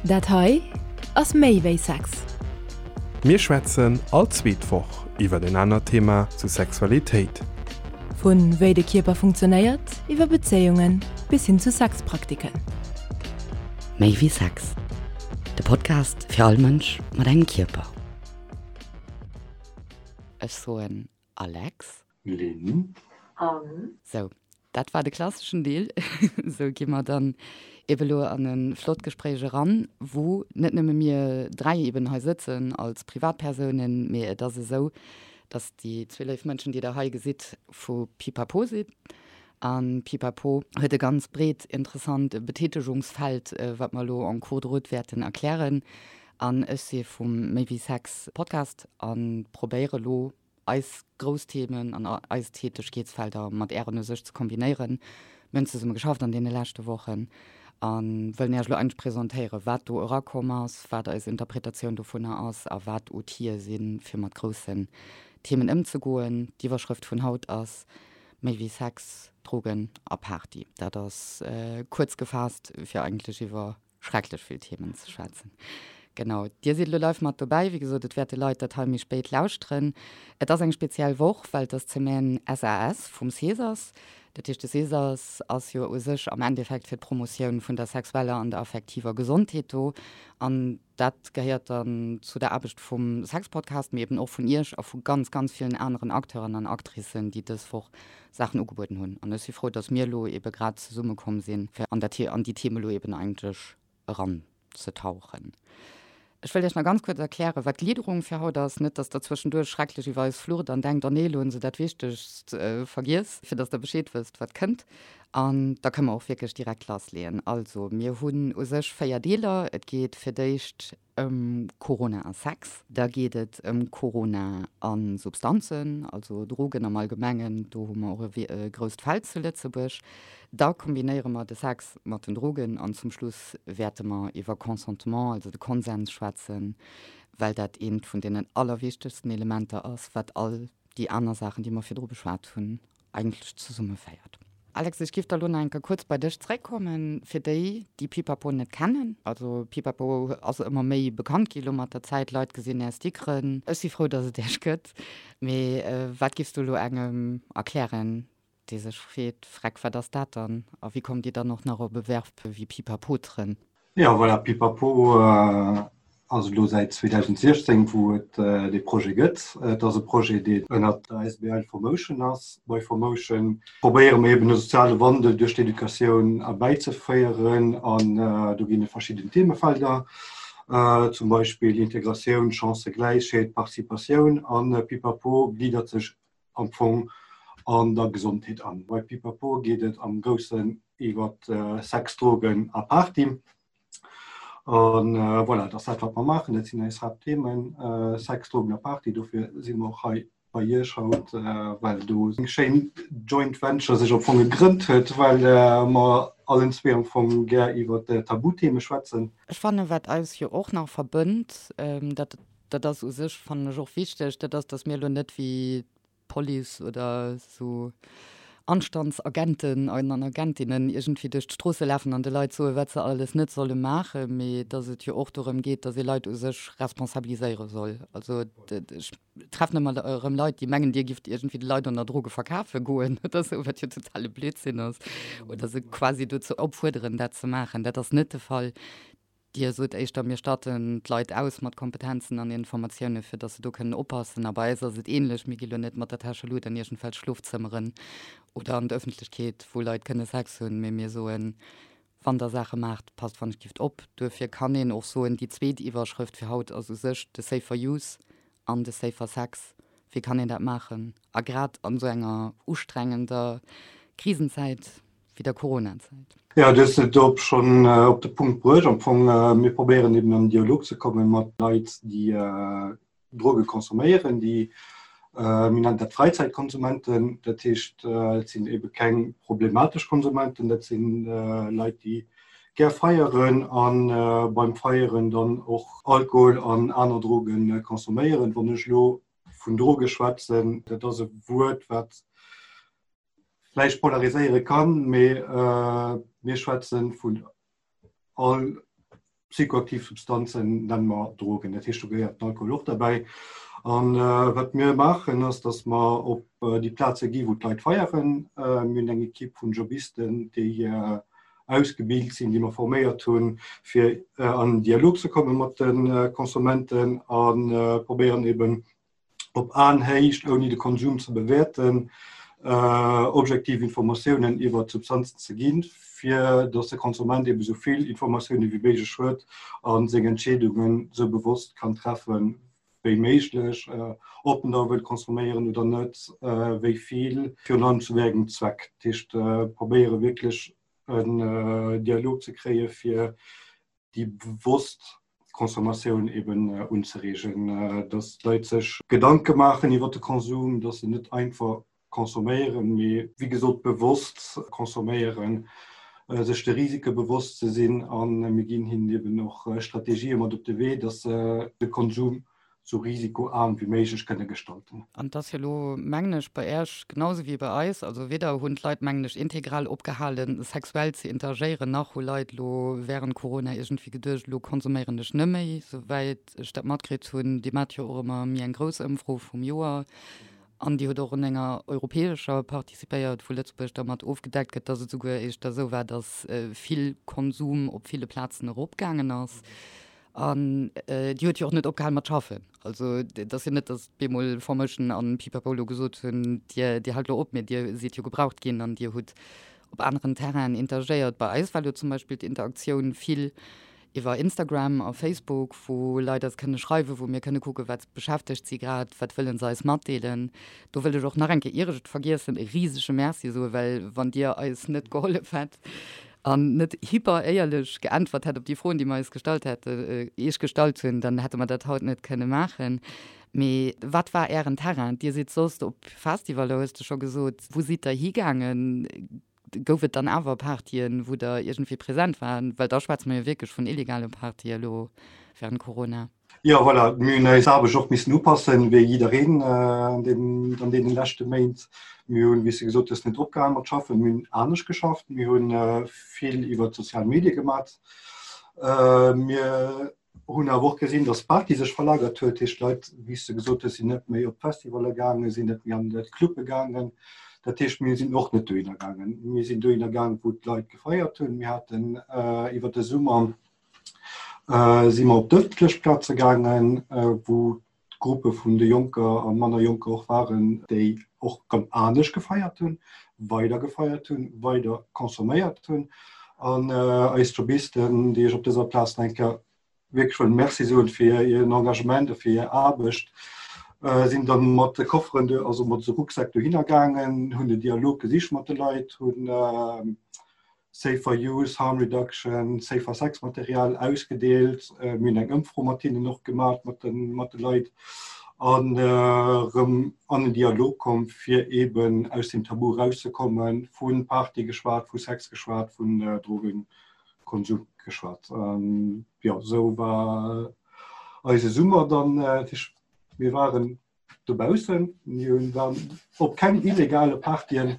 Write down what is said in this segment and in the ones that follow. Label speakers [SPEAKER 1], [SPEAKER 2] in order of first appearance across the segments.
[SPEAKER 1] Dat hei ass méi wéi Sex.
[SPEAKER 2] Mir schwätzen all zweet Woch iwwer en anert Thema zu Sexualitéit.
[SPEAKER 1] Vu wéi de Kierper funktionéiert, iwwer Bezéiungen bis hin zu Sexpraktiken.
[SPEAKER 3] Méi wéi Sex, de Podcast fir all Mënsch mat engem Kierper. Ech soen Alex.
[SPEAKER 4] Lynn.
[SPEAKER 5] Anne.
[SPEAKER 3] Sou, dat war de klasseschen Deel. Sou gi mer dann ebe lo an e flott Gespréich eran, wou net nëmme mir dräi eben hei sëtzen als Privatpersounen, mee et ass esou, dass déi zwee léif Mënschen, déi Der hei gesitt, vu Pipapo sinn. A Pipapo huet e ganz breet, interessant Betätegungsfeld, wat mer elo en cours de route wäerten erklären. An ech si vum Méi wéi Sex Podcast a probéiere lo eis grouss Themen an eis Tätegkeetsfelder mat Ären u sech ze kombinéieren. Mir hunn zesumme geschafft an deene leschte Wochen a wëllen Iech elo eigentlech presentéieren, wat do erakomm ass, wat eis Interpretatioun dovunner ass a wat Outile sinn, fir mat groussen Themen ëmzegoen. D'Iwwerschrëft vun haut ass Méi wéi Sex, Drogen a Party. Dat ass kuerz gefaasst, fir eigentlech iwwer schrecklech vill Themen ze schwätzen. Genau, Dir sidd elo live mat dobäi. Wéi gesot, et wäerte Leit dat hei méi spéit lauschteren. Et ass eng speziell Woch, well et ass d'Semaine SAS vum Cesas. Dat heescht, de Cesas ass jo u sech am Endeffekt fir d'Promotioun vun der sexueller an der affektiver Gesondheet do. An dat gehéiert dann zu der Aarbecht vum Sexpodcast, mee eben och vun Iech a vu ganz, ganz villen aneren Acteuren an Actricen, déi dës Woch Saachen ugebueden hunn. An ech si frou, dass mir elo ebe grad zesummekomm sinn, fir an dat an déi Theme elo eben eigentlech eranzetauchen. Ech wëll Iech nach ganz kuerz erklären, wat d'Gliederung fir haut ass. Net, dass Der zwëschenduerch schrecklech iwwer eis flucht an denkt, Oh nee, elo hunn se dat Wichtegst vergiess, fir dass Der Bescheed wësst, wat kënnt. An da kënne mer och wierklech direkt lassleeën. Also, mir hunn u sech 4 Deeler. Et geet fir d'éischt ëm Corona a Sex. Da geet et ëm Corona a Substanzen, also Drogen am Allgemengen. Do hu mer och e grousst Feld zu Lëtzebuerg. Da kombinéiere mer de Sex mat den Drogen an zum Schluss wäerte mer iwwer Consentement, also de Konsens schwätzen, well dat eent vun deenen allerwichtegsten Elementer ass, wat all déi aner Saachen, déi mer virdru beschwat hunn, eigentlech zesummeféiert. Alex, ech giff da lo nach eng Kéier kuerz bei dech zréckkommen, fir déi, déi Pipapo net kennen. Also Pipapo ass ëmmer méi bekannt gi lo mat der Zäit, Leit gesinn är Stickeren. Ech si frou, dass et iech gëtt. Mee wat giffs du lo engem erklären, dee sech freet, Freck, wat ass dat dann? A wéi kommt dir dann och nach op e Verb wéi pipapotere?
[SPEAKER 4] Jo, voilà, Pipapo ass elo säit 2016, wou et dee Projet gëtt. Et ass e Projet, deen ënnert der asbl Formotion ass. Bei Formotion probéiere mir eben e soziale Wandel duerch d'Educatioun erbäizeféieren an do ginn et verschidden Themefelder, zum Beispill Integratioun, Chancëgläichheet, Participatioun an Pipapo gliddert sech am Fong an der Gesondheet an. Bei Pipapo geet et am Groussen iwwer Sex, Drogen a Party. An voilà, dat ass dat, wat mer maachen. Dat sinn eis Haaptthemen, Sex, Drogen a Party. Dofir si mer och hei bei Iech haut, well do eng schéin Joint Venture sech am Fong gegrënnt huet, well mer allen zwee am Fong gär iwwer Tabutheme schwätzen.
[SPEAKER 3] Ech fannen, wat eis jo och nach verbënnt, dat Dat ass u sech, fannen ech, och wichteg, dat ass, datt mir elo net wéi d'Police oder esou Anstandsagenten an Agentinnen iergendwéi duerch d'Stroosse lafen an de Leit soen, wat se alles net solle maachen, mee datt et jo och dorëm geet, datt ee Leit u sech responsabiliséiere soll. Also ech treffen ëmmer erëm Leit, déi mengen, Dir gifft iergendwéi de Leit ënner Droge verkafe goen oder esou, wat jo totale Blödsinn ass, oder se quasi dozou opfuerderen, dat ze maachen. Dat ass net de Fall. Dir sot éischter, mir statten d'Leit aus mat Kompetenzen an Informatioune fir datt se do kënnen oppassen. A bei eis ass et änlech, mir gi lo net mat der Täschelut an iergendwelch Schlofzëmmeren oder an d'Ëffentlechkeet, wou Leit kënne Sex hunn, mee mir soen, wann der Saache maacht, passt wann ech gift op. Duerfir kann een och soen, déi zweet Iwwerschrëft fir haut ass u sech de Safer Use an de Safer Sex. Wéi kann een dat maachen? A grad an esou enger ustrengender Krisenzäit wéi der Coronazäit.
[SPEAKER 4] Jo, du hues et op schonn op de Punkt bruecht. Am Fong, mir probéieren eben an den Dialog ze komme mat Leit, déi Droge consomméieren, déi, mir nennen dat Fräizäitkonsumenten. Dat heescht, et sinn ebe keng problematesch Konsumenten, dat si Leit, déi gär feieren a beim Feieren dann och Alkohol an aner Droge consomméieren. Wann ech elo vun Droge schwätzen, dat ass e Wuert, wat vläicht polariséiere kann, mee mir schwätze vun all. Psychoaktiv Substanzen nenne mer Drogen, dat heescht do gehéiert den Alkohol och derbäi. An wat mir maachen ass, datt mer op déi Plaze gi wou d'Leit feieren. Mir hunn eng Ekipp vun Jobisten, déi ausgebilt sinn, déi mer forméiert hunn, fir an en Dialog ze komme mat de Konsumenten a probéieren eben op Aenhéicht, ouni de Konsum ze bewäerten, objektiv Informatiounen iwwer d'Substanzen ze ginn, fir datt de Konsument ebe sou vill Informatioune wéi méiglech huet a seng Entscheedungen sou bewosst kann treffen wéi méiglech, ob en da wëllt consomméieren oder net, wéi vill, virun allem zu wéi engem Zweck. Dat heescht, probéiere wierklech en Dialog ze kréie fir déi bewosst Consommatioun eben unzereegen, dass d'Leit sech Gedanke maachen iwwer de Konsum, dass se net einfach consomméieren, mee wéi gesot bewosst consomméieren, sech de Risike bewosst ze sinn. A mir ginn hinnen eben och Strategië mat op de Wee, dass se de Konsum sou risikoaarm wéi méiglech kënne gestalten.
[SPEAKER 3] An et ass jo elo, mengen ech, bei Äech genau sou wéi bei eis, also weder hunn d'Leit, mengen ech, integral opgehalen, sexuell ze interagéieren, nach hu Leit elo während Corona iergendwéi geduecht, elo konsuméieren ech net méi, souwäit ech dat matkritt hunn. Dir maacht jo och ëmmer méi eng grouss Ëmfro vum Joer an Dir hutt och un enger europäescher participéiert, wou Lëtzebuerg da mat ofgedeckt gëtt, dass et souguer éischter esou war, dass vill Konsum op ville Plazen eropgaangen ass. An déi huet jo och net opgehal mat schaffen. Also et ass jo net, datt bemol Formation an Pipapo elo gesot hunn, Dir, Dir haalt elo op, mee Dir sidd jo gebraucht ginn an Dir hutt op aneren Terrainen interagéiert. Bei eis war elo zum Beispill d'Interaktioun vill iwwer Instagram a Facebook, wou Leit eis kënne schreiwen, wou mir kënne kucken, wat beschäftegt si grad, wat wëlle se eis matdeelen. Do wëll ech och nach eng Kéier, ier ech et vergiessen, e risege Merci soen, well wann Dir eis net gehollef hätt, an net hyper éierlech geäntwert hätt op déi Froen, déi mer eis gestallt hätte, Iech gestallt hunn, dann hätte mer dat haut net kënne maachen. Mee wat war Ären Terrain? Dir sidd soss op Festivaler, hues de scho gesot. Wou sidd Der higaangen? Gouf et dann awer Partyen, wou Der iergendwéi present waren? Well da schwätze mer jo wierklech vun illegale Partye elo während Corona.
[SPEAKER 4] Jo, voilà, mir hunn eis Aarbecht och missen upassen, wéi jiddereen an deenen, an deenen leschte Méint. Mir hunn, wéi s de gesot hues, net opgehal mat schaffen, mir hunn anescht geschafft, mir hu vill iwwer d'sozial Medie gemat. Mir hunn awer och gesinn, datt d'Party sech verlagert huet, heescht d'Leit, wéi s de gesot hues, sinn net méi op d'Festivalle gaangen, sinn net méi an d'Clubbe gaangen. Dat heescht, mir sinn och net dohinner gaangen. Mir sinn dohinner gaangen, wou d'Leit gefeiert hunn. Mir haten iwwer de Summer si mer op d'ëffentlech Plaze gaangen, wou d'Gruppe vun de Jonker a manner Jonker och waren, déi och rëm anescht gefeiert hunn, weider gefeiert hunn, weider consomméiert hunn. An eis Jobisten, déi ech op dëser Plaz nach eng Kéier wierklech wëll Merci soen fir hiren Engagement a fir hir Aarbecht, sinn da mat de Kofferen, also mat de Rucksäck dohinner gaangen, hunn den Dialog gesicht mat de Leit, hunn Safer Use, Harm Reduction, Safer Sex Material ausgedeelt. Mir hunn eng Ëmfro mat hinnen och gemaach, mat de, mat de Leit an erëm an en Dialog komm, fir eeben aus dem Tabu erauszekommen, vu Party geschwat, vu Sex geschwat, vun Drogenkonsum geschwat. Jo, esou war eise Summer dann. Mir waren Dobaussen, mir hunn dann op keng illegale Partyen.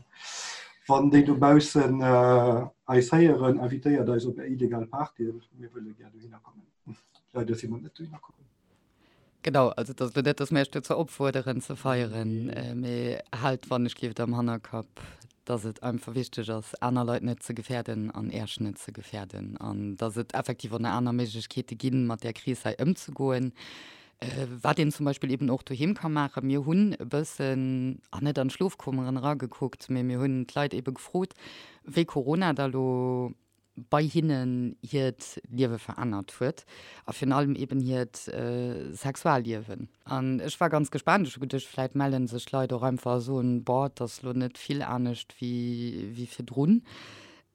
[SPEAKER 4] Wann déi dobaussen eis héieren, invitéiert eis op är illegal Partyen, mir wëlle gär dohinner kommen. Leider si mer net dohinner komm.
[SPEAKER 3] Genau, also et ass elo net, datt mir iech dozou opfuerderen ze feieren, mee haalt wann ech gleeft am Hannerkapp, datt et einfach wichteg ass, aner Leit net ze gefäerden an Äech net ze gefäerden an datt et effektiv och nach aner Méiglechkeete ginn, mat där Kris hei ëmzegoen. Wat een zum Beispill eben och doheem ka maachen, mir hunn e bëssen, ah net an d'Schlofkummeren eragekuckt, mee mir hunn d'Leit ebe gefrot, wéi Corona da lo bei hinnen hiert Liewe verännert huet a virun allem eben hiert Sexualliewen. An ech war ganz gespaant, ech hu geduecht, vläit melle sech d'Leit och einfach a soen, boah, et ass lo net vill anescht wéi virdrun.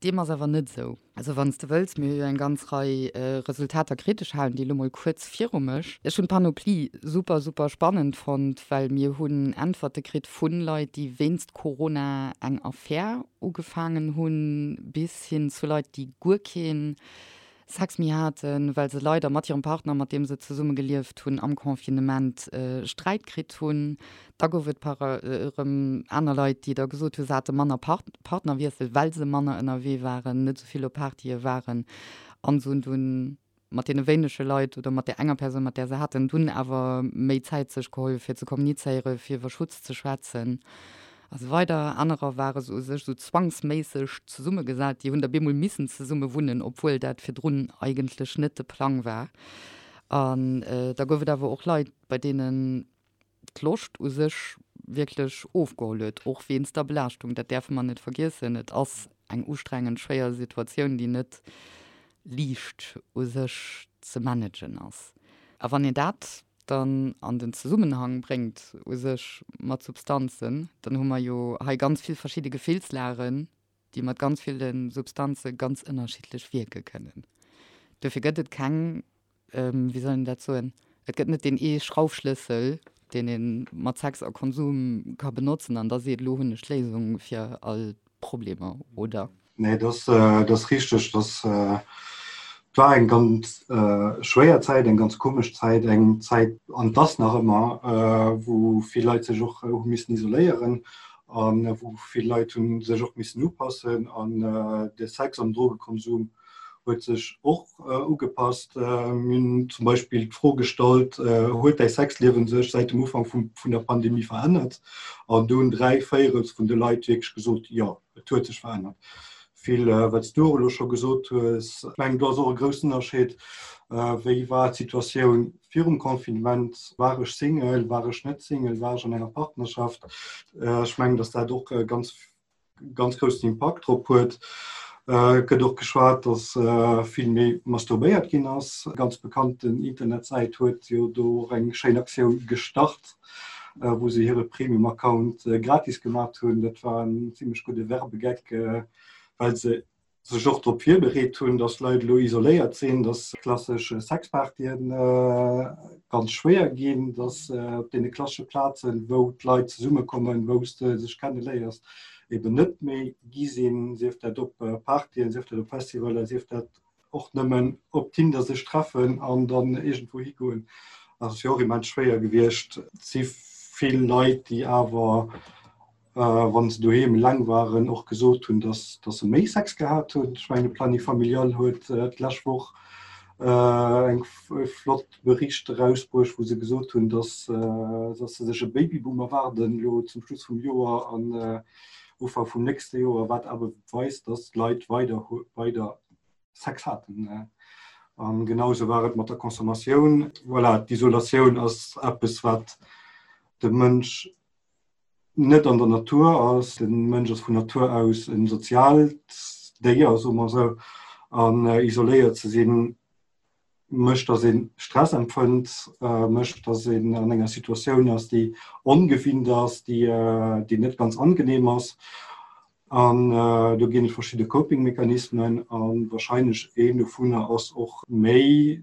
[SPEAKER 3] Deem ass awer net esou. Also wann s de wëlls, mir hu jo eng ganz Rei Resultater kritt, ech halen déi elo mol kuerz viru mech. Ech hunn d'Panoplie super, super spannend fonnt, well mir hunn Äntwerte kritt vu Leit, déi wéinst Corona eng Affär ugefaangen hunn, bis hin zu Leit, déi guer kee Sex méi haten, well se leider mat hirem Partner, mat deem se zesumme gelieft hunn, am Confinement Sträit kritt hunn. Da gouf et par erëm aner Leit, déi da gesot hunn, se hate manner Partnerwiessel, well se manner ënnerwee waren, net esou vill op Partye waren an se hunn dunn. mat deene wéinege Leit oder mat där enger Persoun, mat där se haten, dunn awer méi Zäit sech geholl, fir ze kommunizéieren, fir iwwer Schutz ze schwätzen a sou weider. Anerer ware se u sech sou zwangsméisseg zesummegesat, déi hunn da bemol missen zesumme wunnen, obwuel dat virdrun eigentlech net de Plang war. An da gouf et awer och Leit, bei deenen d'Loscht u sech wierklech ofgeholl huet, och wéinst der Belaaschtung. Dat däerfe mer net vergiessen. Et ass eng ustrengend, schwéier Situatioun, déi net liicht u sech ze managen ass. A wann een dat dann an den Zesummenhang bréngt u sech mat Substanzen, dann hu mer jo hei ganz vill verschidde Gefillslagen, déi mat ganz ville Substanze ganz ënnerschiddlech wierke kënnen. Dofir gëtt et keng, wéi soll een dat soen, et gëtt net deen ee Schraufschlëssel, deen ee mat Sex a Konsum ka benotzen an da seet, elo hunn ech d'Léisung fir all d'Problemer, oder?
[SPEAKER 4] Nee, dat ass richteg. Dat war eng ganz schwéier Zäit, eng ganz komesch Zäit, eng Zäit, an et ass nach ëmmer, wou vill Leit sech och hu missen isoléieren a wou vill Leit hu sech och missen upassen an de Sex an Drogekonsum huet sech och ugepasst. Mir hunn zum Beispill d'Fro gestallt, Huet däi Sexliewen sech säit dem Ufank vun der Pandemie verännert? An do hunn 3 Véierels vun de Leit wierklech gesot, Jo, et huet sech verännert. Vill, wat s du och elo scho gesot hues. Ech mengen, do ass och e groussen Ënnerscheed, Wéi war d'Situatioun virum Confinement? War ech Single, war ech net Single, war ech an enger Partnerschaft? Ech mengen, datt dat och e ganz, ganz groussen Impakt drop huet. Et gëtt och geschwat, datt vill méi masturbéiert ginn ass. Eng ganz bekannten Internetsäit huet jo do och eng schéin Aktioun gestart, wou se hire Premium-Account gratis gemat hunn. Dat war en zimmlech gudde Werbegeck, well se sech och drop virbereet hunn, datt Leit elo isoléiert sinn, datt klassesch Sexpartyen ganz schwéier ginn, datt op deene klassesche Plazen, wou d'Leit zesummekommen, wou s de sech kenneléiers, eben net méi gi sinn, sief dat op Partyen, sief dat op Festivaler, sief dat och nëmmen op Tinder sech treffen an dann iergendwou higoen, ass jo och immens schwéier gewiescht. Et si vill Leit, déi awer, wa se doheem eleng waren, och gesot hunn, dass dass se méi Sex gehat hunn. Ech mengen, de Planning Familial huet d'lescht Woch eng flott Bericht erausbruecht, wou se gesot hunn, dass dass se sech e Babyboom erwaarden elo zum Schluss vum Joer an Ufank vum nächste Joer, wat awer weist, dass d'Leit weider weider Sex haten. An genauso war et mat der Consommatioun. Voilà, d'Isolatioun ass eppes, wat de Mënsch net an der Natur ass. De Mënsch ass vun Natur aus en soziaalt Déier, soe mer esou, an isoléiert ze sinn, mécht, dass ee Stress empfënnt, mécht, dass een an enger Situatioun ass, déi ongewinnt ass, déi, déi net ganz angenehm ass. An do ginn et verschidde Coping-Mechanismen a wahrscheinlech een dovunner ass och méi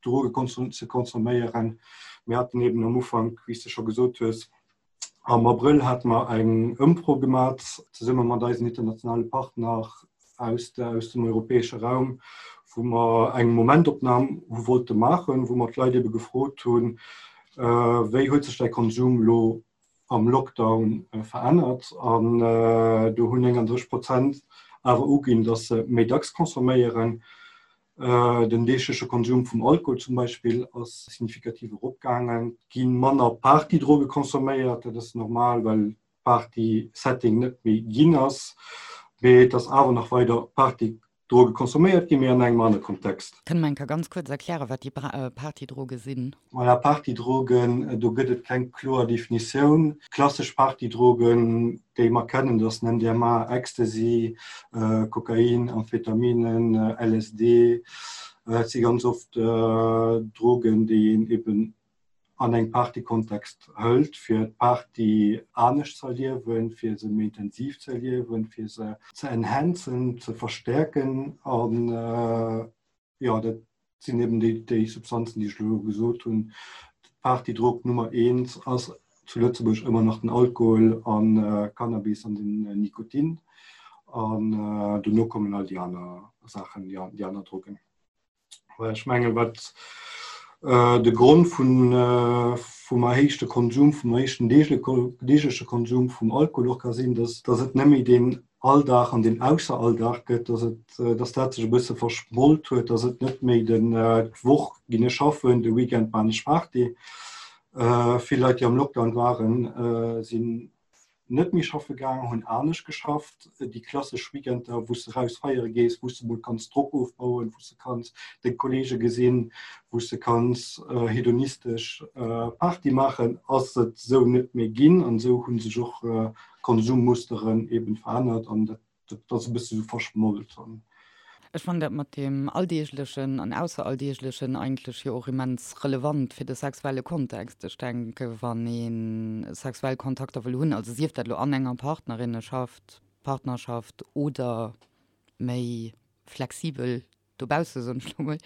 [SPEAKER 4] Droge ze consomméieren. Mir haten eben am Ufank, wéi s de scho gesot hues, am Abrëll hate mer eng Ëmfro gemat zesumme mat eisen internationale Partner aus aus dem europäesche Raum, wou mer eng Momentopnam hu wollte maachen, wou mer d'Leit ebe gefrot hunn, Wéi huet sech däi Konsum elo am Lockdown verännert? An do hunn 39 Prozent awer uginn, datt se méi dacks consomméieren. Den deegleche Konsum vum Alkohol zum Beispill ass signifikativ eropgaangen. Et gi manner Partydroge consomméiert, dat ass normal, well Party-Setting net méi ginn ass, mee et ass awer nach weider Partydroge consomméiert ginn, mee an engem anere Kontext.
[SPEAKER 3] Kënne mer eng Kéier ganz kuerz erklären, wat déi Partydroge sinn?
[SPEAKER 4] Voilà, Partydrogen, do gëtt et keng kloer Definitioun. Klassesch Partydrogen, déi mer kennen, dat ass den MDMA, Ecstasy, Kokain, Amphetaminen, LSD. Et si ganz oft Drogen, déi een eben an engem Partykontext hëlt, fir d'Party anescht ze erliewen, fir se méi intensiv ze erliewen, fir se ze enhancen, ze verstäerken. An jo, dat sinn eben déi, déi Substanzen, déi ech elo gesot hunn. D'Partydrog Nummer eent ass zu Lëtzebuerg ëmmer nach den Alkohol an Cannabis an den Nikotin. An dono kommen all déi aner Saachen, déi aner Drogen. Ech menge wat de Grond vun vum erhéichte Konsum, vum erhéichten deegleche Konsum vum Alkohol och ka sinn, datt datt et net méi deen. Alldag an deen Ausseralldag gëtt, dass et, dass dat sech e bësse verschmolt huet, dass et net méi den d'Woch ginn ech schaffen, de Weekend man ech Party. Vill Leit, déi am Lockdown waren, sinn net méi schaffe gaang, hunn anescht geschafft. Déi klassesch Weekender, wou s de raus feiere gees, wou s de mol kanns Drock ofbauen, wou s de kanns deng Kolleege gesinn, wou s de kanns hedonistesch Party maachen, ass et esou net méi ginn. An esou hu sech och Konsummusteren eben verännert an dat ass e bësse sou verschmolt.
[SPEAKER 3] Ech fannen dat mat deem Alldeeglechen an Ausseralldeeglechen eigentlech jo och immens relevant fir de sexuelle Kontext. Ech denke wann ee sexuell Kontakter wëll hunn, also sief dat elo an enger Partnerinneschaft, Partnerschaft oder méi flexibel dobausse soen ech lo mol,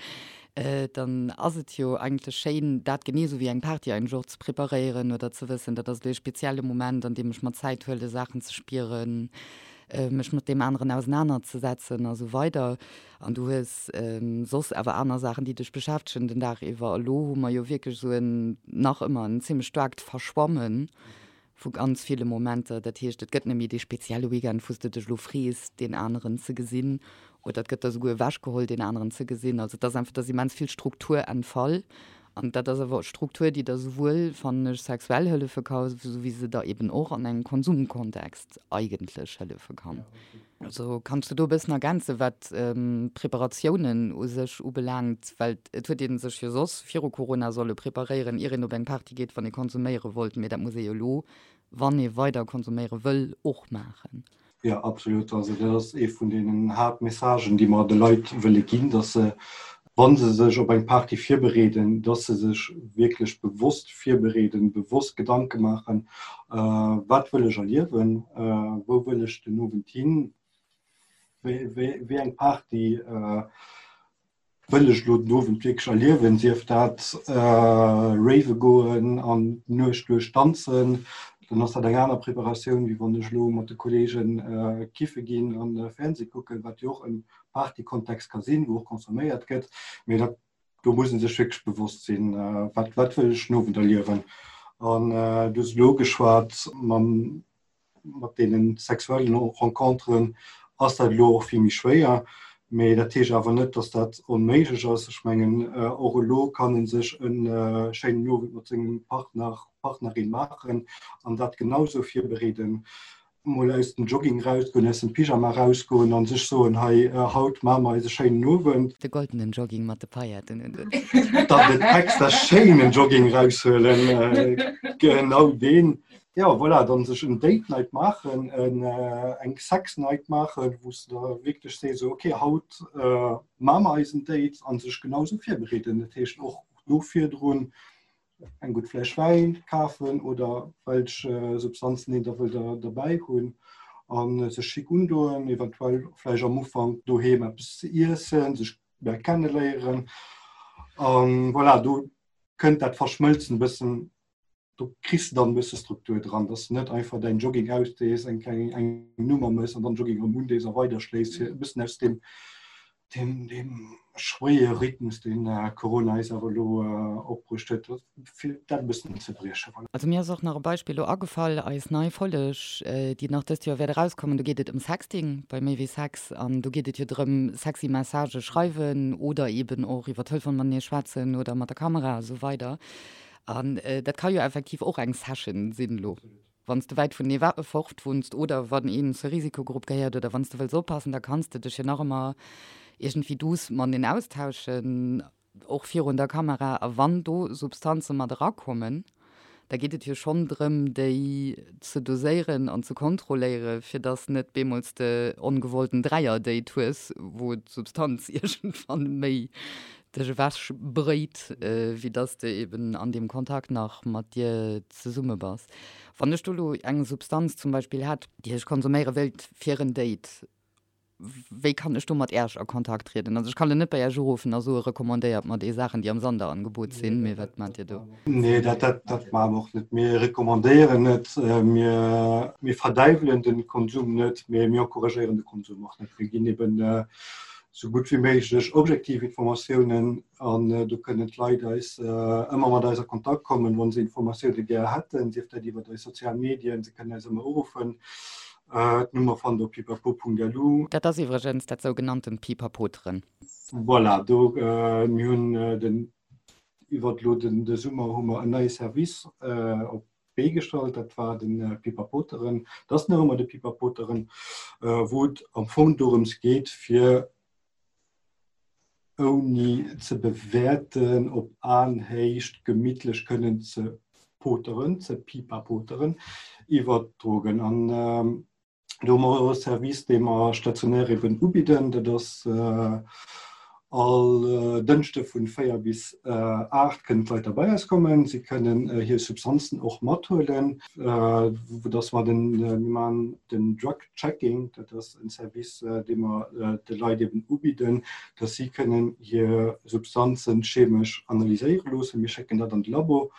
[SPEAKER 3] dann ass et jo eigentlech schéin, dat genee esou wéi eng Party eigentlech och ze preparéieren oder ze wëssen, dat ass elo ee spezielle Moment, an deem ech mer Zäit huele Saachen ze spieren, mech mat deem aneren ausenanerzesetzen a sou weider. An du hues soss awer aner Saachen, déi dech beschäftegen den Dag iwwer. Elo hu mer jo wierklech esou en nach ëmmer en zimmlech staarkt Verschwammen Vu ganz ville Momenter. Dat heescht, et gëtt net méi dee spezielle Weekend, wou s de dech elo frees, deen aneren ze gesinn, oder et gëtt der souguer ewechgeholl, deen aneren ze gesinn. Also et ass einfach, et ass immens vill Struktur entfall. An dat ass awer Struktur, déi der souwuel, fannen ech, sexuell hëllefe ka, sou wéi se der eben och an engem Konsumkontext eigentlech hëllefe kann. Also kanns du do e bëssen ergänzen, wat d'Preparatiounen u sech ubelaangt? Well et huet ee sech jo soss viru Corona solle preparéieren, ier een op eng Party geet, wann ee konsuméiere wollt. Mee dat muss ee jo elo, wann ee weider konsuméiere wëll, och maachen.
[SPEAKER 4] Jo, absolut. Also dat ass ee vun deenen Haaptmessagen, déi mer de Leit wëlle ginn, datt se, wa se sech op eng Party virbereeden, datt se sech wierklech bewosst virbereeden, bewosst Gedanke maachen, Wat wëll ech erliewen? Wou wëll ech den Owend hin? Wéi eng Party wëll ech elo den Owend wierklech erliewen? Sief dat rave goen an d'Nuecht duerch danzen, dann ass dat eng aner Preparatioun, wéi wann ech elo mat de Kolleegen kiffe ginn an Fernseh kucken, wat jo och e Partykontext ka sinn, wou och consomméiert gëtt. Mee dat do muss een sech wierklech bewosst sinn, wat, wat wëll ech den Owend erliewen. An du hues elo ugeschwat, mam, mat deene sexuellen Renconteren ass dat elo och vill méi schwéier. Mee dat heescht awer net, datt dat onméiglech ass. Ech mengen, och elo kann ee sech e schéinen Owend mat sengem Partner, Partnerin maachen an dat genau sou virbereeden. mol aus dem Jogging rausgoen, aus dem Pyjama rausgoen an sech soen, hei haut maache mer eis e schéinen Owend.
[SPEAKER 3] De goldenen Jogging mat de Pailletten un
[SPEAKER 4] den. Dann den extra schéinen Jogging raushuelen, genau deen. Jo voilà, dann sech en Date Night maachen, eng Sex Night maachen, wou s de da wierklech sees, esou ok haut maache mer eis en Date an sech genau esou virbereeden. Dat heescht och do virdrun eng gutt Fläsch Wäin kafen oder welch Substanzen een da wëll derbäi hunn a sech schick undoen, eventuell vläicht am Ufank doheem eppes ze iessen, sech méi kenneléieren. An voilà, do kënnt dat Verschmëlzen e bëssen, do kriss de dann e bësse Struktur dran, dass de net einfach däin Jogging ausdees, eng kleng eng Nummer mëss an dann Jogging erëm undees a weiderschléiss, fir e bëssen aus deem Deem, deem schwéiere Rhythmus, deen Corona eis awer elo opbruecht huet, fir dat e bëssen ze briechen.
[SPEAKER 3] Voilà. Also mir ass och nach e Beispill elo agefall, eis nei Folleg, déi nach dëst Joer wäert erauskommen, do geet et ëm Sexting bei Méi wéi Sex an do geet et jo drëm, sexy Messagë schreiwen oder eeben och iwwer Telefon matenee schwätzen oder mat der Kamera a sou weider. An dat ka jo effektiv och eng Session sinn elo. Wann s de wäit vun ee fort wunns oder wann een zur Risikogrupp gehéiert oder wann s de wëlls oppassen, da kanns de dech jo nach ëmmer iergendwéi douce mateneen austauschen, och virun der Kamera. A wann do Substanze mat erakommen, da geet et jo schonn drëm, déi ze doséieren an ze kontrolléiere fir dass net bemools de ongewollten Dräier-Date hues, wou d'Substanz iergendwann méi dech ewech bréit, wéi dass de eben an deem Kontakt nach mat dir zesumme bass. Wann ech do elo eng Substanz zum Beispill hätt, déi ech konsuméiere wéilt fir en Date, wéi kann ech do mat Äerch a Kontakt trieden? Also ech kann elo net bei Äerch uruffen a soe recommandéiert mer déi Saachen, déi am Sanderangebot sinn, mee wat maacht Dir do?
[SPEAKER 4] Nee, dat, dat, dat maache mer och net. Mir recommandéieren net, mir, mir verdäiwelen de Konsum net, mee mir encouragéieren de Konsum och net. Mir ginn eben esou gutt wéi méiglech objektiv Informatiounen an do kënnen d'Leit eis ëmmer mat eis a Kontakt kommen, wa se Informatioune gär hätten, sief dat iwwer eis sozial Medien, se kënnen eis ëmmer uruffen. D'Nummer fannt der op pipapo.lu.
[SPEAKER 3] Dat ass iwwregens dat sougenanntent Pipapoteren.
[SPEAKER 4] Voilà, do mir hunn den iwwert elo den de Summer hu mer en neie Service op d'Bee gestallt, dat war de Pipapoteren. Dat ass nach ëmmer de Pipapoteren, wou et am Fong dorëms geet, fir ouni ze bewäerten, op Aenhéicht gemittlech kënnen ze poteren, ze pipapoteren iwwer d'Drogen. An do hu mer e Service, dee mer stationär eben ubidden. Dat ass all Dënschde vun 4 bis 8 kënnen d'Leit da bei eis kommen. Si kënnen hir Substanzen och mathuelen, vu dass mer den, mir maachen den Drug Checking, dat ass en Service, dee mer de Leit eben ubidden, dass si kënnen hir Substanzen chemesch analyséiere loossen. Mir schécken dat an de Labo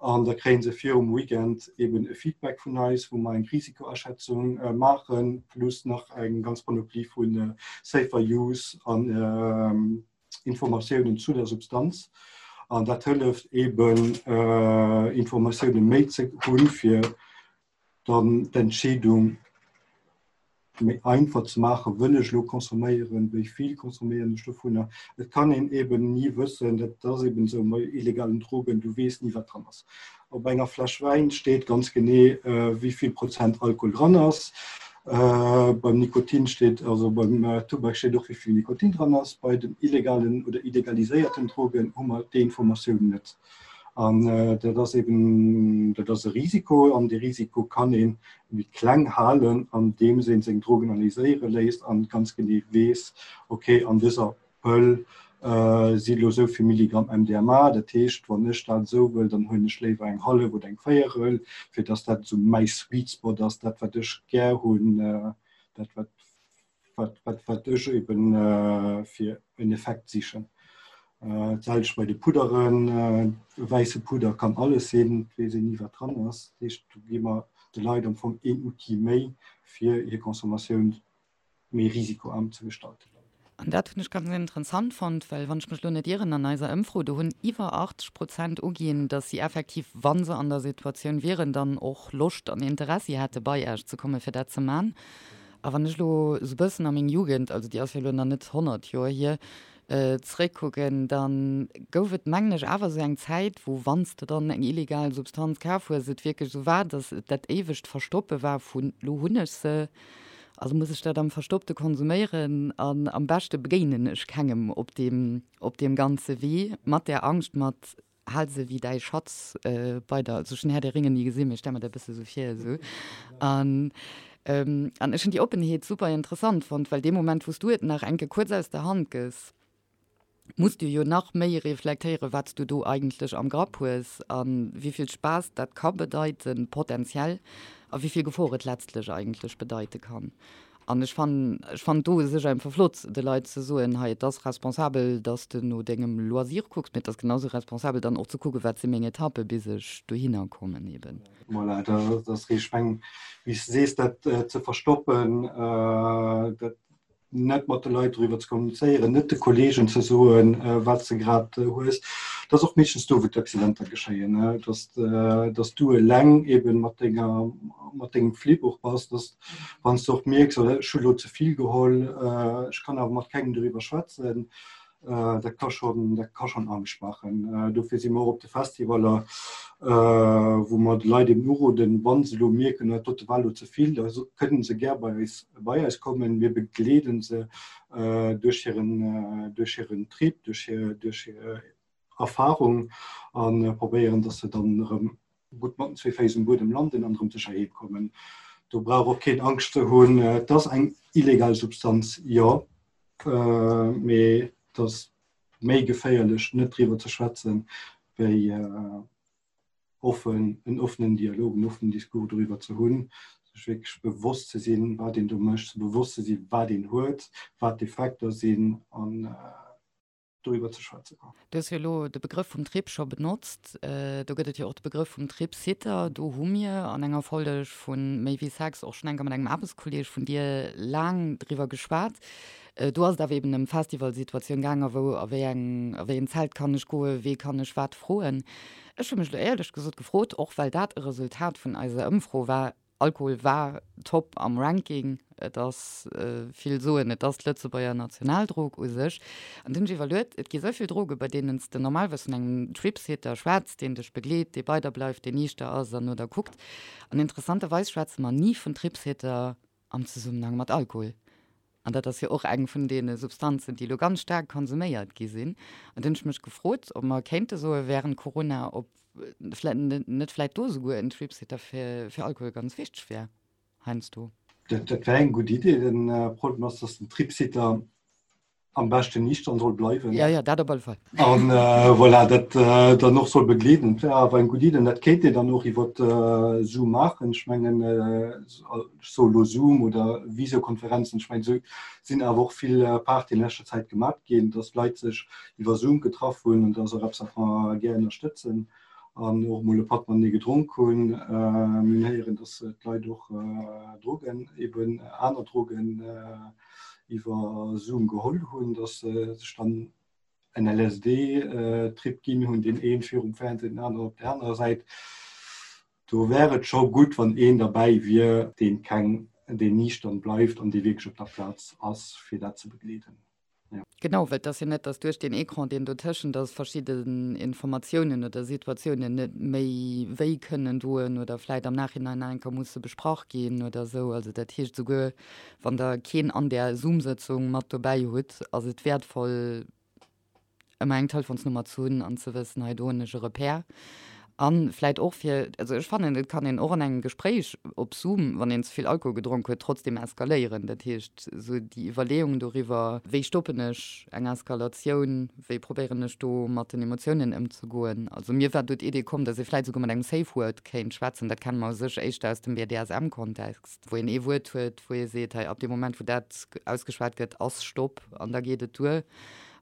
[SPEAKER 4] an da kréie se virum Weekend eben e Feedback vun eis, wou mer eng Risikoaschätzung maachen, plus nach eng ganz Panoplie vu Safer Use an Informatiounen zu der Substanz. An dat hëlleft eben Informatioune méi ze hunn, fir dann d'Entscheedung méi einfach ze maachen, wëll ech elo consomméieren, wéi vill consomméieren ech dovunner. Et kann een eben ni wëssen, dat ass eben esou bei illegalen Drogen, du weess ni wat dran ass. Op enger Fläsch Wäin steet ganz genee wéi vill Prozent Alkohol dran ass. Beim Nikotin steet, also beim Tubak steet och wéi vill Nikotin dran ass. Bei den illegalen oder illegaliséierten Drogen hu mer déi Informatioun net. An dat ass eben, dat ass e Risiko an dee Risiko kann ee méi kleng halen, andeems ee seng Drogen analyséiere léisst an ganz genee weess, okay, an dëser Pëll si elo esou vill Milligramm MDMA, dat heescht, wann ech dat esou wëll, dann huelen ech léiwer eng hallef oder eng Véierel, fir datt dat esou mäi Sweet Spot ass, dat wat ech gär hunn, dat wat wat, wat, wat ech eben äh, fir en Effekt sichen. Äh, D'selwecht bei de Pudderen, äh, wäisse Pudder kann alles sinn, et weess een ni wat dran ass. Dat heescht, do gi mer de Leit am Fong een Outil méi, fir hir Consommatioun méi risikoarm ze gestalten.
[SPEAKER 3] An dat hunn ech ganz interessant fonnt, well wann ech mech elo net ieren, an eiser Ëmfro, do hunn iwwer 80 Prozent uginn, datt si effektiv, wa se an der Situatioun wieren, dann och Loscht an Interessi hätte bei Iech ze kommen, fir dat ze man. A wann ech elo esou bëssen a meng Jugend, also déi ass jo elo nach net 100 Joer hier, zeréckkucken, da gouf et, mengen ech, awer esou eng Zäit, wou wann s de dann eng illegal Substanz kaf hues, et wierklech esou war, datt et dat éiwegt Verstoppe war vun, Lo hunn ech se, also muss ech dat am Verstoppte konsuméieren an am beschte begéinen ech kengem op deem, op deem ganze Wee, mat där Angscht, mat Hal se wéi däi Schatz bei der. Also ech hunn Herr der Ringe ni gesinn, mee ech stelle mer dat e bësse sou vir esou. An an ech hunn déi Oppenheet super interessant fonnt, well dee Moment wou s du et nach enke kuerz aus der Hand gëss, muss du jo nach méi reflektéieren, wat s du do eigentlech am Grapp hues a wéi vill Spaass dat ka bedeiten, potenziell, a wéi vill Gefor et letztlech eigentlech bedeite kann. An ech fannen, ech fannen do u sech einfach flott, de Leit ze soen, hei, et ass responsabel, dass de no dengem Loisir kucks, mee et ass genau sou responsabel dann och ze kucken, wat si meng Etappe bis ech dohinner kommen eben.
[SPEAKER 4] Voilà, dat ass richteg. Ech mengen, wéi s de sees, dat ze verstoppen, dat net mat de Leit doriwwer ze kommunizéieren, net de Kolleegen ze soen, wat s de grad hues, dat ass och meeschtens do, wou d'Accidenter geschéien, dass, dass du eleng eben mat denger, mat dengem Flip och bass, dass Wann s de och mierks, oh, ech hu lo ze vill geholl, ech kann awer mat kengem doriwwer schwätzen, dat ka schonn, dat ka schonn Angscht maachen. Dofir si mer och op de Festivaller, wou mer de Leit eben uroden, wa se elo mierken, dat dote war elo ze vill, da kënnen se gär bei eis, bei eis kommen. Mir begleeden se duerch hiren, duerch hiren Trip, duerch hir, duerch hir Erfarung a probéieren, dass se dann erëm gutt mat den zwee Féiss um Buedem landen an erëm sécher heem kommen. Do brauch och keen Angscht ze hunn. Et ass eng illegal Substanz, jo, mee et ass méi geféierlech net driwwer ze schwätzen, wéi offen, en offenen Dialog, en offenen Discours doriwwer ze hunn, sech wierklech bewosst ze sinn, wat een do mécht, bewosst ze sinn, wat een huet, wat d'Effekter sinn an doriwwer ze schwätzen.
[SPEAKER 3] Du hues jo elo de Begrëff vum Trip scho benotzt. Do gëtt et jo och de Begrëff vum Tripsitter. Do hu mir an enger Folg vu Méi wéi Sex och schonn eng Kéier mat engem Aarbechtskolleeg vun dir laang driwwer geschwat. Do ass et awer eben ëm Festivalsituatioun gaangen, wou a wéi eng, a wéi en Zelt kann ech goen, wee kann ech wat froen. Ech hu mech elo éierlech gesot gefrot, och well dat e Resultat vun eiser Ëmfro war. Alkohol war top am Ranking. Et ass, vill soen, et ass d'Lëtzebuerger Nationaldrog u sech. An du hunn ech iwwerluet, et gi sou vill Droge bei deenen s de normalerweis vun engem Tripsitter schwätz, deen dech begleet, dee bei der bleift, deen niichter ass an no der kuckt. An interessanterweis schwätze mer ni vun Tripsitter am Zesummenhang mat Alkohol. An dat ass jo och eng vun deene Substanzen, déi elo ganz staark konsuméiert gi sinn. An du hunn ech mech gefrot, ob mer kéinte soe während Corona, ob net vläit do esouguer en Tripsitter fir Alkohol ganz wichteg wär heiansdo.
[SPEAKER 4] Dat wär eng gutt Idee. Den Problem ass, dass den Tripsitter am beschten niichtern soll bleiwen.
[SPEAKER 3] Ja, ja, dat op alle Fall.
[SPEAKER 4] An voilà, dat dann och soll begleeden. Dat wär awer eng gutt Idee. An dat kéint een dann och iwwer Zoom maachen. Ech mengen, ech soe lo Zoom oder Visiokonferenzen, ech mengen, esou sinn awer och vill Partyen an leschter Zäit gemat ginn, dass Leit sech iwwer Zoom getraff hunn. An dat ass och eppes, wat mer gär ënnerstëtzen an och emol e Patt matenee gedronk hunn. Mir hunn héieren, dass d'Leit och Drogen, eben aner Drogen iwwer Zoom geholl hunn, dass se sech dann en LSD-Trip ginn hunn, deen ee virum Fernseh, den aneren op der anerer Säit. Do wär et scho gutt, wann een derbäi wier, deen keng, deen niichtern bleift an dee wierklech op der Plaz ass, fir dat ze begleeden.
[SPEAKER 3] Jo. Genau, well et ass jo net, datt duerch deen Ecran, deen dotëschent ass, verschidden Informatiounen oder Situatiounen net méi wéi kënnen doen oder vläit am Nachhinein nach eng Kéier musse besprach ginn oder esou. Also dat heescht, esouguer wann Der keen an där Zoom-Sëtzung mat dobäi hutt, ass et wäertvoll, ëmmer eng Telefonsnummer ze hunn an ze wëssen, hei do hunn ech e Repère. A vläit och fir, also ech fannen, et kann een och an engem Gespréich op Zoom, wann een ze vill Alkohol gedronk huet, trotzdem eskaléieren. Dat heescht, esou déi Iwwerleeung doriwwer, wéi stoppen ech eng Eskalatioun, wéi probéieren ech do mat den Emotiounen ëmzegoen. Also mir war do d'Idee komm, datt ee vläit esouguer mat engem Safe Word kéint schwätzen. Dat kenne mer u sech éischter aus dem BDSM-Kontext, wou een ee Wuert huet, wou ee seet, hei ab deem Moment, wou dat ausgeschwat gëtt, ass Stopp an da geet et duer.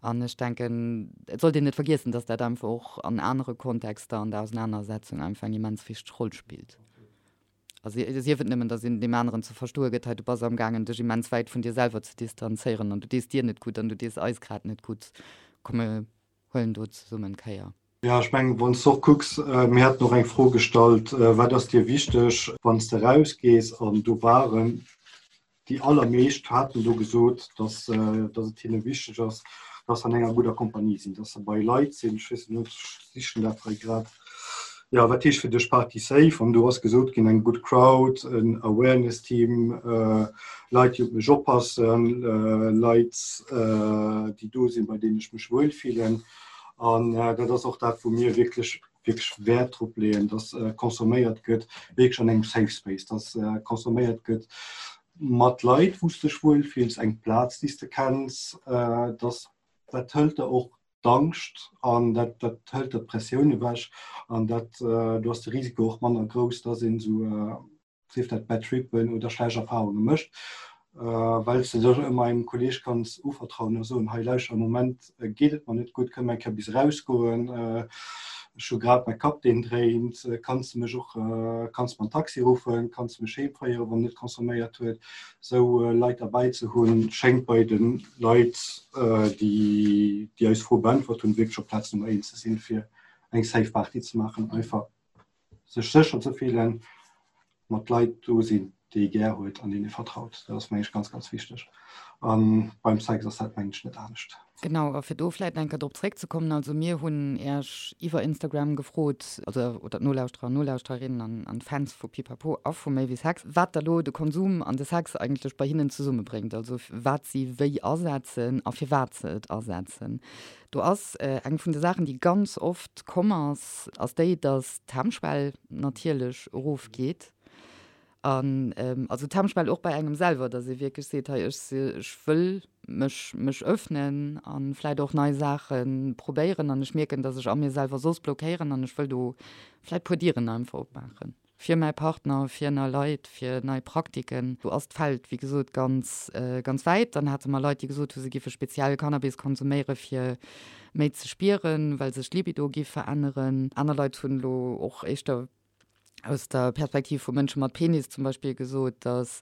[SPEAKER 3] An ech denken, et sollt een net vergiessen, dass dat einfach och an anere Kontexter an der Ausenanersetzung einfach eng immens wichteg Roll spillt. A sief et nëmmen, dass een deem aneren ze verstoe gëtt, hei du bass amgaangen, dech immens wäit vun dir selwer ze distanzéieren an du dees dir net gutt an du dees eis grad net gutt. Komm mir huelen do zesummen Kéier.
[SPEAKER 4] Jo, ech mengen, wann s de och kucks, mir haten och eng Fro gestallt, Wat ass dir wichteg, wann s de erausgees? An do waren déi allermeescht haten do gesot, dass, dass et hinne wichteg ass, dass se an enger gudder Kompanie sinn, dass se bei Leit sinn, ech weess net, ech sichen dat hei grad, jo, wat heescht fir dech Party safe? An do ass gesot ginn, eng gutt Crowd, en Awareness-Team, Leit, déi op mech oppassen, Leit, déi do sinn, bei deenen ech mech wuel fillen. An dat ass och dat, wou mir wierklech wierklech Wäert drop leeën, dass consomméiert gëtt, wierklech an engem Safe Space, dass consomméiert gëtt mat Leit, wou s de dech wuel fills, eng Plaz, déi s de kenns, dass dat hëlt der och d'Angscht an dat dat hëlt der d'Pressioun ewech an dat do ass de Risiko och manner grouss, dass een esou sief dat Bad Trippen oder schlecht Erfahrunge mécht, well s de dech ëmmer engem Kolleeg kanns uvertrauen a soen, hei lauschter, am Moment geet et mer net gutt, kënne mer eng Kéier bis erausgoen, ech hu grad mäi Kapp deen dréint, kanns de mech och, kanns de mer en Taxi ruffen, kanns de mech heem féieren, wann en net consomméiert huet. Esou Leit derbäi ze hunn, schéngt bei de Leit, déi déi eis Fro beäntwert hunn, wierklech op Plaz Nummer eent ze sinn, fir eng safe Party ze maachen, einfach. sech sécher ze fillen, mat Leit do sinn, déi ee gär huet an deenen ee vertraut. Dat ass, meng ech, ganz, ganz wichteg. A beim Sex ass dat, meng ech, net anescht.
[SPEAKER 3] Genau, a fir do vläit nach eng Kéier drop zréckzekommen, also mir hunn Iech iwwer Instagram gefrot, also oder d'Nolauschterer an Nolauschtererinnen an an d'Fans vu Pipapo a vu Méi wéi Sex, wat da lo de Konsum an de Sex eigentlech bei hinnen zesummebréngt, also wat si wéi asetzen a firwat se et asetzen. Do ass eng vun de Saachen, déi ganz oft komm ass, ass déi, datt d'Hemmschwell natierlech erofgeet. An also d'Hemmschwell och bei engem selwer, datt ee wierklech seet, hei ech ech wëll mech mech öffnen a vläicht och nei Saache probéieren an ech mierken, datt ech a mir selwer soss blockéieren an ech wëll do vläicht puer Dieren einfach opmaachen. Fir mäi Partner, fir nei Leit, fir nei Praktiken. Do ass d'Feld, wéi gesot, ganz, ganz wäit. Dann hate mer Leit, déi gesot hu se giffe speziell Cannabis konsuméiere fir méi ze spieren, well sech d'Libido giff veränneren. Aner Leit hunn elo och éischter aus der Perspektiv vu Mënsche mat Penis zum Beispill gesot, datt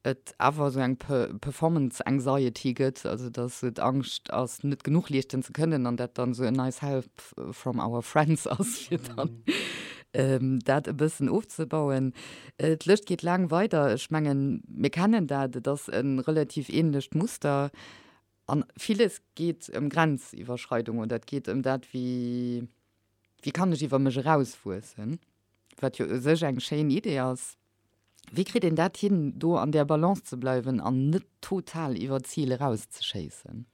[SPEAKER 3] et awer esou eng Performance Anxiety gëtt, also datt esou d'Angscht ass, net genuch leeschten ze kënnen an dat dann esou e nice help from our friends ass, fir dann. dat e bëssen ofzebauen. D'Lëscht geet laang weider. Ech mengen, mir kennen dat, et ass e relativ ähnlecht Muster. An villes geet ëm Grenziwwerschreidung oder et geet ëm dat, wéi, wéi kann ech iwwer mech erauswuessen, wat jo u sech eng schéin Idee ass. Wéi kritt een dat hin, do an där Balance ze bleiwen an net total iwwer d'Zil erauszeschéissen?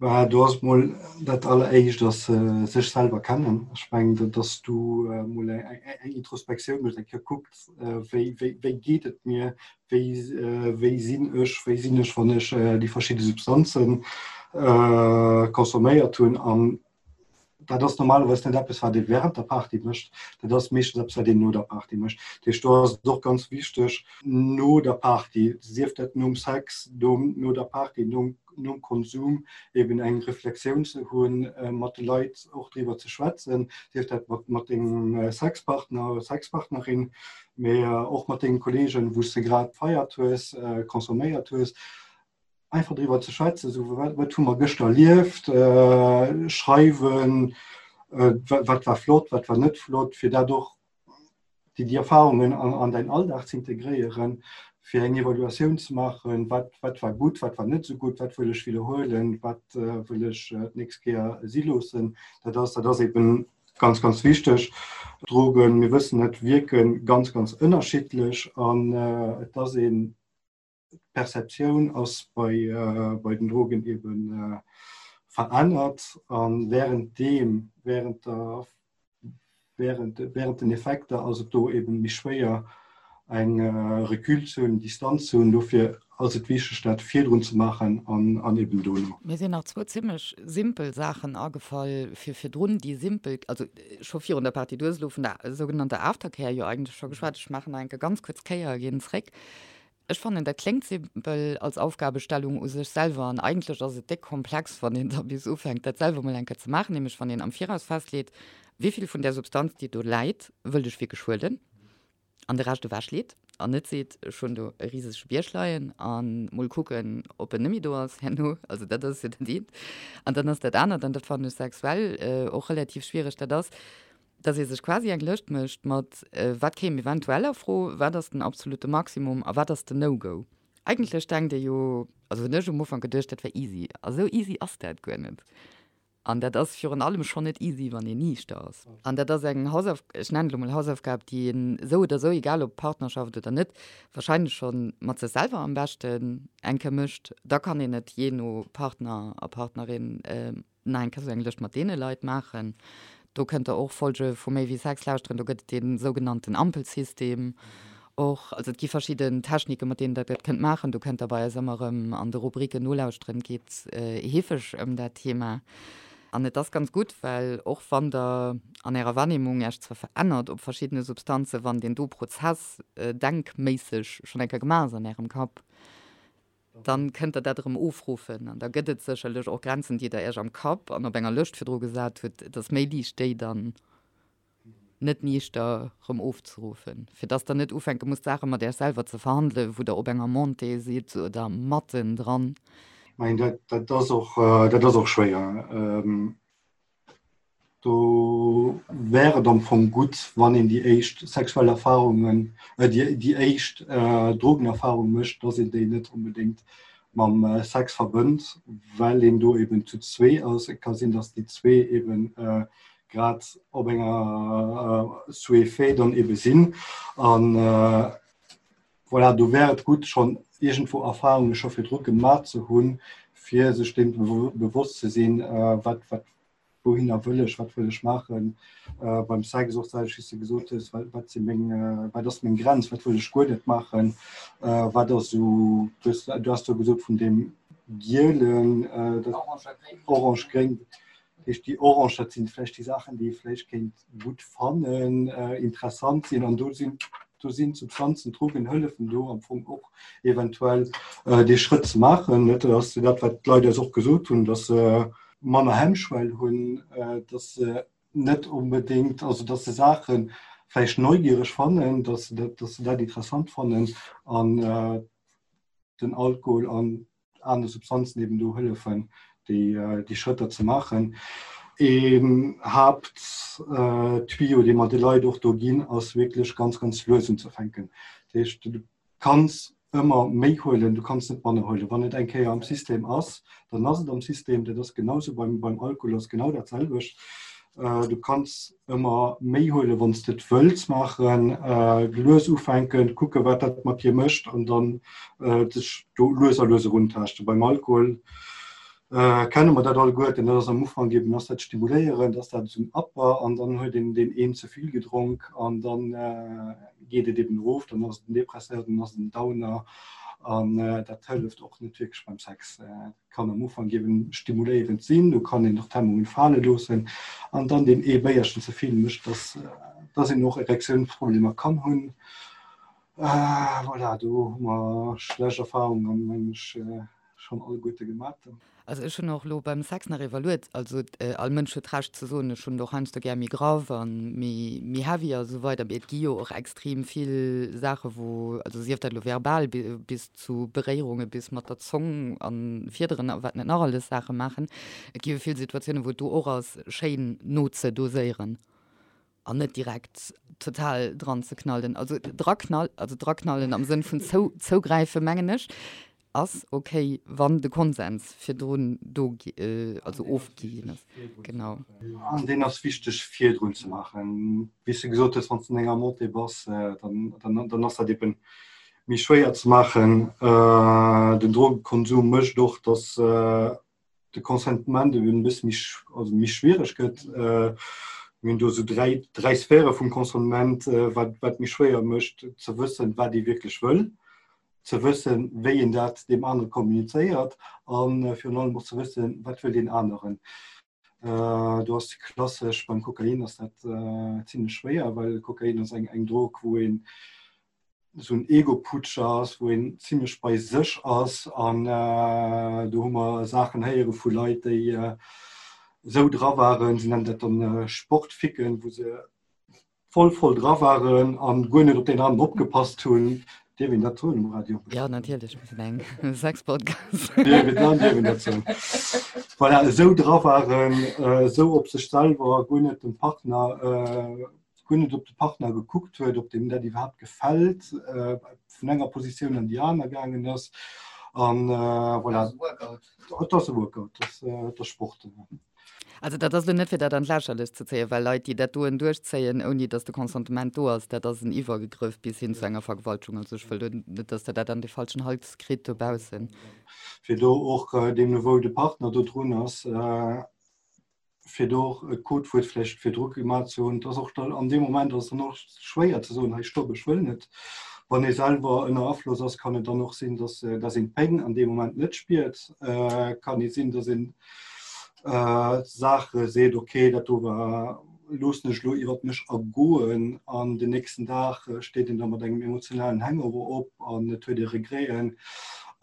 [SPEAKER 4] Bah, do ass mol dat alleréischt ass sech selwer kennen. Ech mengen, dass du mol eng Introspektioun méchs, eng Kéier kucks, wéi, wéi, wéi geet et mir, wéi, wéi sinn ech, wéi sinn ech, wann ech déi verschidde Substanze consomméiert hunn. An dat ass normalerweis net eppes, wat ee während der Party mécht, dat ass meeschtens eppes, wat een no der Party mécht. Dat heescht, do ass et och ganz wichteg, no der Party, sief dat nom Sex, no der Party, nom nom Konsum, eben eng Reflexioun ze hunn, mat de Leit och driwwer ze schwätzen, sief dat mat mat dengem Sexpartner oder Sexpartnerin, mee och mat dengen Kollegen, wou s de grad gefeiert hues, consomméiert hues. einfach driwwer ze schwätzen, so wat, wat hu mer gëschter erlieft, äh, schreiwen, äh, wat war flott, wat war net flott, fir dat och déi, déi Erfahrungen an, an dein Alldag ze integréieren, fir eng Evaluatioun ze maachen, wat, wat war gutt, wat war net sou gutt, wat wëll ech wiederhuelen, wat äh, wëll ech äh, d'nächst Kéier si loossen. Dat ass, dat ass eben ganz, ganz wichteg. Drogen, mir wëssen et, wierke ganz, ganz ënnerschiddlech an äh, et ass een D'Perceptioun ass bei, bei den Drogen eben verännert an während deem, während der, während, während den Effekter ass et do eben méi schwéier eng Recul ze hunn, Distanz ze hunn. Dofir ass et wichteg dat virdrun ze maachen an, an eben dono.
[SPEAKER 3] Mir sinn nach zwou zimmlech simpel Saachen agefall fir virdrun, déi simpel, also scho virun der Partie, du hues elo vun der sougenannter Aftercare jo eigentlech scho geschwat, ech maachen nach eng Kéier ganz kuerz Kéier a ginn zréck. Ech fannen, dat kléngt simpel als Aufgabestellung u sech selwer an eigentlech ass et déck komplex, wann een da bis ufänkt, dat selwer mol eng Kéier ze maachen, nämlech wann een am Viraus festleet, wéi vill vun där Substanz, déi do läit, wëllt ech wierklech huelen an de Rescht ewechleet an net seet, ech hunn do e risege Bierg leien a mol kucken, ob en net méi do ass herno. Also dat ass jo dat eent. An dann ass dat anert, an dat fannen ech sexuell och relativ schwiereg, dat ass, dass ee sech quasi eng Lëscht mécht mat, wat kéim eventuell a Fro, wat ass den absolute Maximum a wat ass den No-Go. Eigentlech denkt ee jo, also hunn ech um Ufank geduecht, dat wär easy. A sou easy ass dat guer net. An dat ass virun allem schonn net easy, wann een niichter ass. An dat ass eng Hausauf, ech nennen et elo mol Hausaufgab, déi een esou oder esou, egal ob Partnerschaft oder net, wahrscheinlech scho mat sech selwer am beschten eng Kéier mécht. Da kann een et jee no Partner a Partnerin Nach eng Kéier sou eng Lëscht mat deene Leit maachen. Do kënnt der och Folge vu Méi wéi Sex lauschteren. Do gëtt et dee sougenannten Ampelsystem och. Also et gi verschidden Techniken, mat deenen der dat kënnt maachen. Do kënnt der bei eis ëmmer erëm an de Rubriken nolauschteren. Et geet heefeg ëm dat Thema. An et ass ganz gutt, well och wann der an ärer Wahrnehmung Äech zwar verännert op verschiddene Substanzen, wann deen do Prozess denkméisseg schonn eng Kéier gemaach ass an ärem Kapp, Dann kënnt der dat erëm ofruffen an da gëtt et sécherlech och Grenzen, déi der Iech am Kapp an op enger Lëscht virdru gesat hutt. Et ass méi liicht, déi dann net niichter erëm ofzeruffen, fir dass der net ufänke musst, Saache mat Iech selwer ze verhandelen, wou der op enger Montée sidd oder matten dran.
[SPEAKER 4] Ech mengen, dat ass och, dat ass och schwéier. Do wär et am Fong gutt, wann een déi éischt sexuell Erfarungen, äh, déi, déi éischt äh, Drogenerfarung mécht, dass een déi net onbedéngt mam äh, Sex verbënnt, well een do eben zu zwee ass. Et ka sinn, dass déi zwee eben äh, grad op enger äh, Sous-effet dann ebe sinn. An äh, voilà, do wär et gutt, schonn iergendwou Erfarunge scho virdru gemaach ze hunn, fir sech deem bewosst ze sinn, äh, wat, wat, wouhinner wëll ech, wat wëll ech maachen. Äh, beim Sex och d'selwecht, wéi s de gesot hues, wat, wat si meng, äh, wat ass meng Grenz, wat wëll ech guer net maachen, äh, wat ass esou, du hues, du has do gesot vun deem gielen, äh, dat, orange-gréng, dat heescht déi orange, dat sinn vläicht déi Saachen, déi ee vläicht kéint gutt fannen, äh, interessant sinn an do sinn, do sinn Substanzen, Drogen hëllefen do am Fong och eventuell äh, dee Schrëtt ze maachen. Dat ass dat, wat d'Leit eis och gesot hunn, dass se äh, manner Hemmschwell hunn, dass se net onbedéngt, also dass se Saache vläicht neugiereg fannen, dass se dat, dass se dat interessant fannen an den Alkohol an aner Substanzen eben do hëllefen, déi, déi Schrëtter ze maachen. Een Haapt. Haapttuyau, dee mer de Leit och do ginn, ass wierklech ganz, ganz lues unzefänken. Dat heescht, du kanns ëmmer méi huelen, du kanns net manner huelen. Wann et eng Kéier am System ass, dann ass et am System. Dat ass genau sou beim, beim Alkohol ass genau dat selwecht. Du kanns ëmmer méi huelen, wann s de et wëlls maachen. Lues ufänken, kucke wat dat mat dir mécht an dann dech do lues a lues eruntaaschten. Beim Alkohol kenne mer dat alleguerten, dat ass am Ufank eben ass dat stimuléierend, ass dat esou en Upper an dann huet een deen een ze vill gedronk an dann geet et eben erof, dann ass et en Depresseur, dann ass et en Downer an dat hëlleft och net wierklech beim Sex. Kann am Ufank eben stimuléierend sinn, do kann een och d'Hemmungen fale loossen an dann deen ee Béierchen ze vill mécht, dass dass een och Erektiounsproblemer kann hunn. Voilà, do hu mer schlecht Erfahrungen, mengen ech. Schon alleguerte gemat.
[SPEAKER 3] Also ech hunn och elo beim Sex nach evaluiert, also all Mënsch huet d'Recht ze soen, ech hunn et och heiansdo gär méi graff a méi heavy a sou weider, mee et gi jo och extrem vill Saache wou, also sief dat elo verbal bis zu Beréierunge bis mat der Zong a Fiederen a wat net nach alles Saache maachen, et gi jo vill Situatiounen wou et do och ass schéin nozedoséieren. An net direkt total dran ze knallen. Also draknall, also draknallen am Sënn vun zou, zougräifen, mengen ech, ass okay, wann de Konsens virdrun do, also ofgi ginn ass. Genau.
[SPEAKER 4] An deen ass wichteg virdrun ze maachen. Wéi s de gesot hues, wann s de an enger Montée bass, dann, dann, dann ass dat eben méi schwéier ze maachen. Den Drogekonsum mécht och, dass de Consentement eben e bësse méi, also méi schwiereg gëtt. Mir hunn do esou dräi, dräi Sphäre vum Consentement, wat, wat méi schwéier mécht ze wëssen, wat ee wierklech wëll, ze wëssen, wéi een dat deem anere kommunizéiert a virun allem och ze wëssen, wat wëll deen aneren. Do ass klassesch beim Kokain ass dat zimlech schwéier, well Kokain ass eng, eng Drog, wou een esou en Ego-Putsch ass, wou een zimlech bei sech ass an do hu mer Saachen héiere vu Leit, déi esou dra waren, se nennen dat dann Sportficken, wou se voll voll dra waren an guer net op deen aneren opgepasst hunn. Dierf een dat soen um Radio?
[SPEAKER 3] Jo, natierlech, mir sinn eng Sex-Podcast.
[SPEAKER 4] Dierf een dat, dierf een dat soen. Voilà, esou dra waren, esou op sech selwer, guer net dem Partner, guer net op de Partner gekuckt huet, ob deem dat iwwerhaapt gefält, vun enger Positioun an déi aner gaangen ass. An voilà. Et ass e Workout, et ass Sport.
[SPEAKER 3] Also dat ass elo net fir dat an d'Lächerlecht ze zéien, well Leit, déi dat doen duerchzéien, ouni datt de Consentement do ass, dat ass en Iwwergegrëff bis hin zu enger Vergewaltegung. Also ech wëll do net, datt Der dat an de falschen Hals kritt dobaussen.
[SPEAKER 4] Fir do och deemno wou de Partner do drun ass, fir do och e Codewuert vläicht virdru gemaach ze hunn, dass och dann an deem Moment ass dann och schwéier ze soen, hei stopp, ech wëll net. Wann ee selwer ënner Afloss ass, kann et dann och sinn, dass, dass een d'Péng an deem Moment net spiert. Kann ee sinn, dass een Saache seet, okay, dat do war, loossen ech elo iwwert mech ergoen an den nächsten Dag steet een da mat engem emotionalen Hangover op an et huet ee Regreten.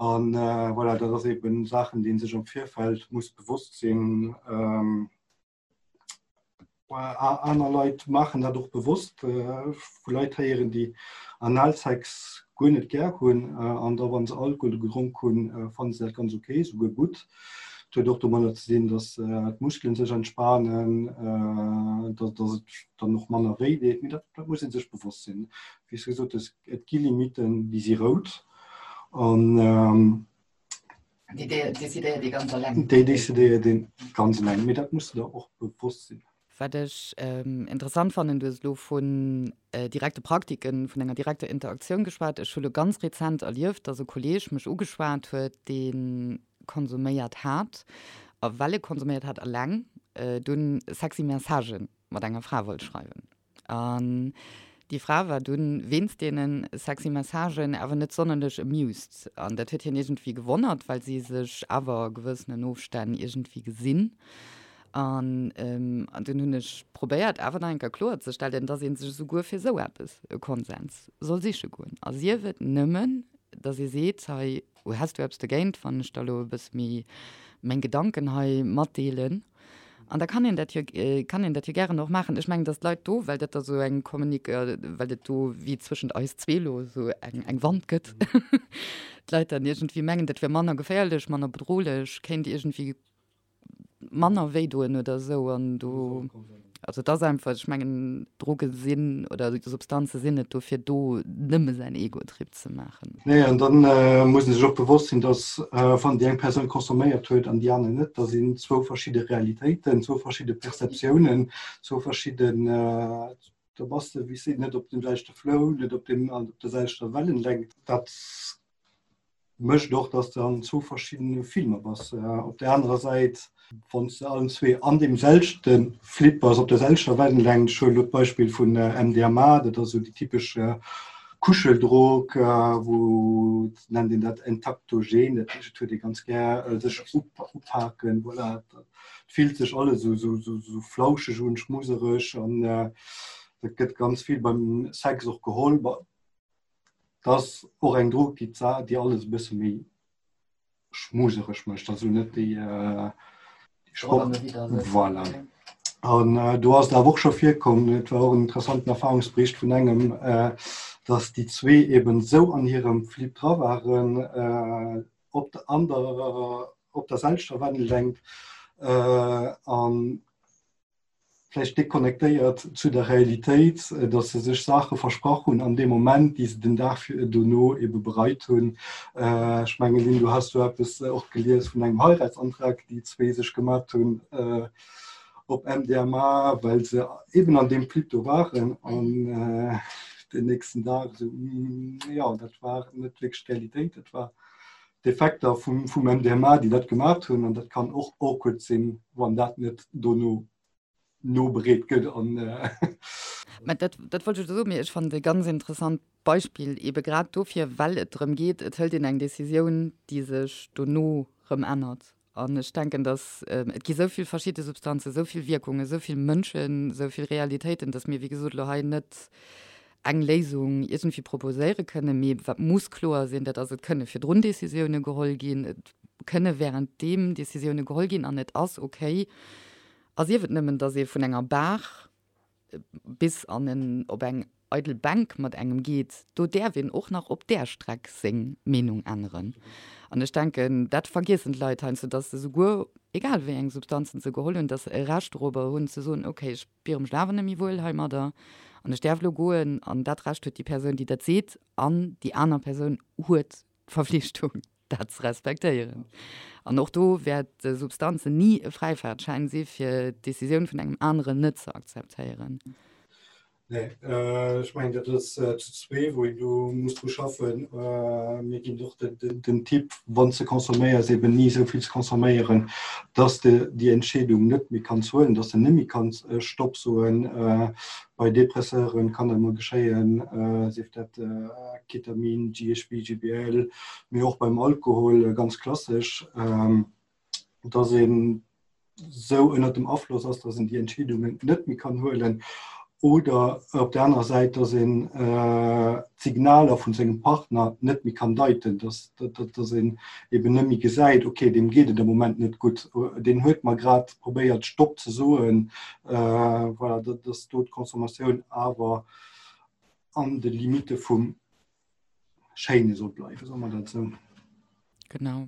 [SPEAKER 4] An voilà, dat ass eben Saachen, déi ee sech am Virfeld muss bewosst sinn. Aner Leit maachen dat och bewosst. Vu Leit héieren, déi Analsex guer net gär hunn an da wa se Alkohol gedronk hunn, fanne se dat ganz ok, souguer gutt. Et huet och domadder ze dinn, datt d'Muskelen sech entspanen, datt et dann och manner wéi deet. Mee dat muss ee sech bewosst sinn. Wéi s de gesot hues, et gi Limitten, déi si rout. An
[SPEAKER 3] Déi decidéiert ee ganz eleng.
[SPEAKER 4] Déi decidéiert ee ganz eleng, mee dat muss de der och bewosst sinn.
[SPEAKER 3] Wat ech interessant fannen, du hues elo vun direkte Praktiken, vun enger direkter Interaktioun geschwat. Ech hu lo ganz rezent erlieft, dass e Kolleeg mech ugeschwat huet, dee konsuméiert hat, a well e konsuméiert hat eleng, dunn sexy Messagë mat enger Fra wollt schreiwen. An déi Fra war dunn wéinst deene sexy Messagen awer net sonnerlech amused. An dat huet hien iergendwéi gewonnert, well si sech awer a gewëssenen Ofstänn iergendwéi gesinn. An dunn hunn ech probéiert awer nach eng Kéier kloerzestellen, dass ee sech esouguer fir esou eppes e Konsens soll siche goen. A sief et nëmmen, dass ee seet, hei häss du eppes dogéint, wann ech der elo e bësse méi meng Gedanken hei matdeelen. An da kann een dat jo, kann een dat jo gären och maachen. Ech mengen, datt d'Leit do, well dat da sou eng Kommunik-, well et do wéi zwëschent eis zwee elo esou eng, eng Wand gëtt, d'Leit dann iergendwéi mengen, dat wär manner geféierlech, manner bedrohlech, kéint iergendwéi manner wéi doen oder esou. An do. Also et ass einfach, ech mengen, Droge sinn oder Substanze sinn net dofir do, nëmme säin Ego-Trip ze maachen.
[SPEAKER 4] Nee, an dann muss ee sech och bewosst sinn, dass wann déi eng Persoun consomméiert huet an déi aner net, da sinn zwou verschidde Realitéiten, zwou verschidde Perceptiounen, zwou verschidden, do bass de wéi s net op deem selwechte Flow, net op deem, op der selwechter Wellenlängt. Dat mécht och, dass de an zwou verschiddene Filmer bass. Op der anerer Säit, wann s de allen zwee an deem selwechte Flip bass, op der selwechter Wellenlängt, ech huelen elo d'Beispill vun MDMA, dat ass esou déi typesch Kuscheldrog, wou et nennt een dat Entaktogen, dat heescht, et huet ee ganz gär sech upaken, voilà, et fillt sech alles esou esou flauscheg un, schmusereg an dat gëtt ganz vill beim Sex och geholl. Dat ass och eng Drog, déi d'Sa déi alles e bësse méi schmusereg mécht, also net déi Sport. Voilà. An do ass et awer och scho virkomm, et war och en interessanten Erfahrungsbericht vun engem, datt déi zwee eben esou an hirem Flip dra waren, op der an der op der selwechter Wellenlängt an vläicht déconnectéiert zu der Realitéit, datt se sech Saache versprach hunn an deem Moment, déi se den Dag dono ebe bereit hunn. Ech mengen, Lynn, du has do eppes och gelies vun engem Heiratsantrag, déi zwee sech gemat hunn op MDMA, well se eben an deem Flip do waren an den nächsten Dag esou, jo, dat war net wierklech d'Realitéit, dat war d'Effekter vum MDMA, déi dat gemaat hunn, an dat kann och awkward sinn, wann dat net dono nobereet gëtt. An
[SPEAKER 3] Mä dat, dat wollt ech elo soen, mee ech fannen et e ganz interessant Beispill, eebe grad dofir, well et drëm geet, et hëlt een eng Decisioun, déi sech dono rëm ännert. An ech denken, datt et gi sou vill verschidde Substanzen, sou vill Wierkungen, sou vill Mënschen, sou vill Realitéiten, datt mir, wéi gesot, elo hei net eng Léisung iergendwéi proposéiere kënnen. Mee wat muss kloer sinn, dat ass, et kënne virdrun Décisioune geholl ginn, et kënne währenddeem Décisioune geholl ginn an et ass okay, a sief et nëmmen, datt ee vun enger Bar bis an en op eng eidel Bänk mat engem geet, do däerf een och nach op där Streck seng Meenung änneren. An ech denken, dat vergiessen d'Leit heiansdo, datt se souguer, egal wéi eng Substanzen se geholl hunn, datt se e Recht dorobber hunn ze soen, okay, ech spiere mech awer net méi wuel heimadder an ech däerf elo goen. An dat Recht huet déi Persoun, déi dat seet, an déi aner Persoun huet d'Verflichtung. dat ze respektéieren. An och do wäert Substanzen ni e Fräifaartschäin si fir d'Decisioun vun engem aneren net ze akzeptéieren.
[SPEAKER 4] Nee, ech mengen dat ass zu zwee wou een do muss dru schaffen. Mir ginn och den Tipp, wann s de consomméiers, eben ni esou vill ze consomméieren, dass de déi Entscheedung net méi kanns huelen, dass de net méi kanns Stopp soen. Bei Depresseuren kann dat mol geschéien, sief dat Ketamin, GHB, GBL, mee och beim Alkohol ganz klassesch, dass een sou ënnert dem Afloss ass, dass een déi Entscheedungen net méi kann huelen oder op der anerer Säit, dass een d'Signaler vun sengem Partner net méi kann deiten, dass dass een eben net méi gesäit, okay, deem geet et am Moment net gutt, deen huet mer grad probéiert Stopp ze soen, voilà, dass do d'Consommatioun awer an de Limitte vum Schéine soll bleiwen, soe mer dat esou.
[SPEAKER 3] Genau.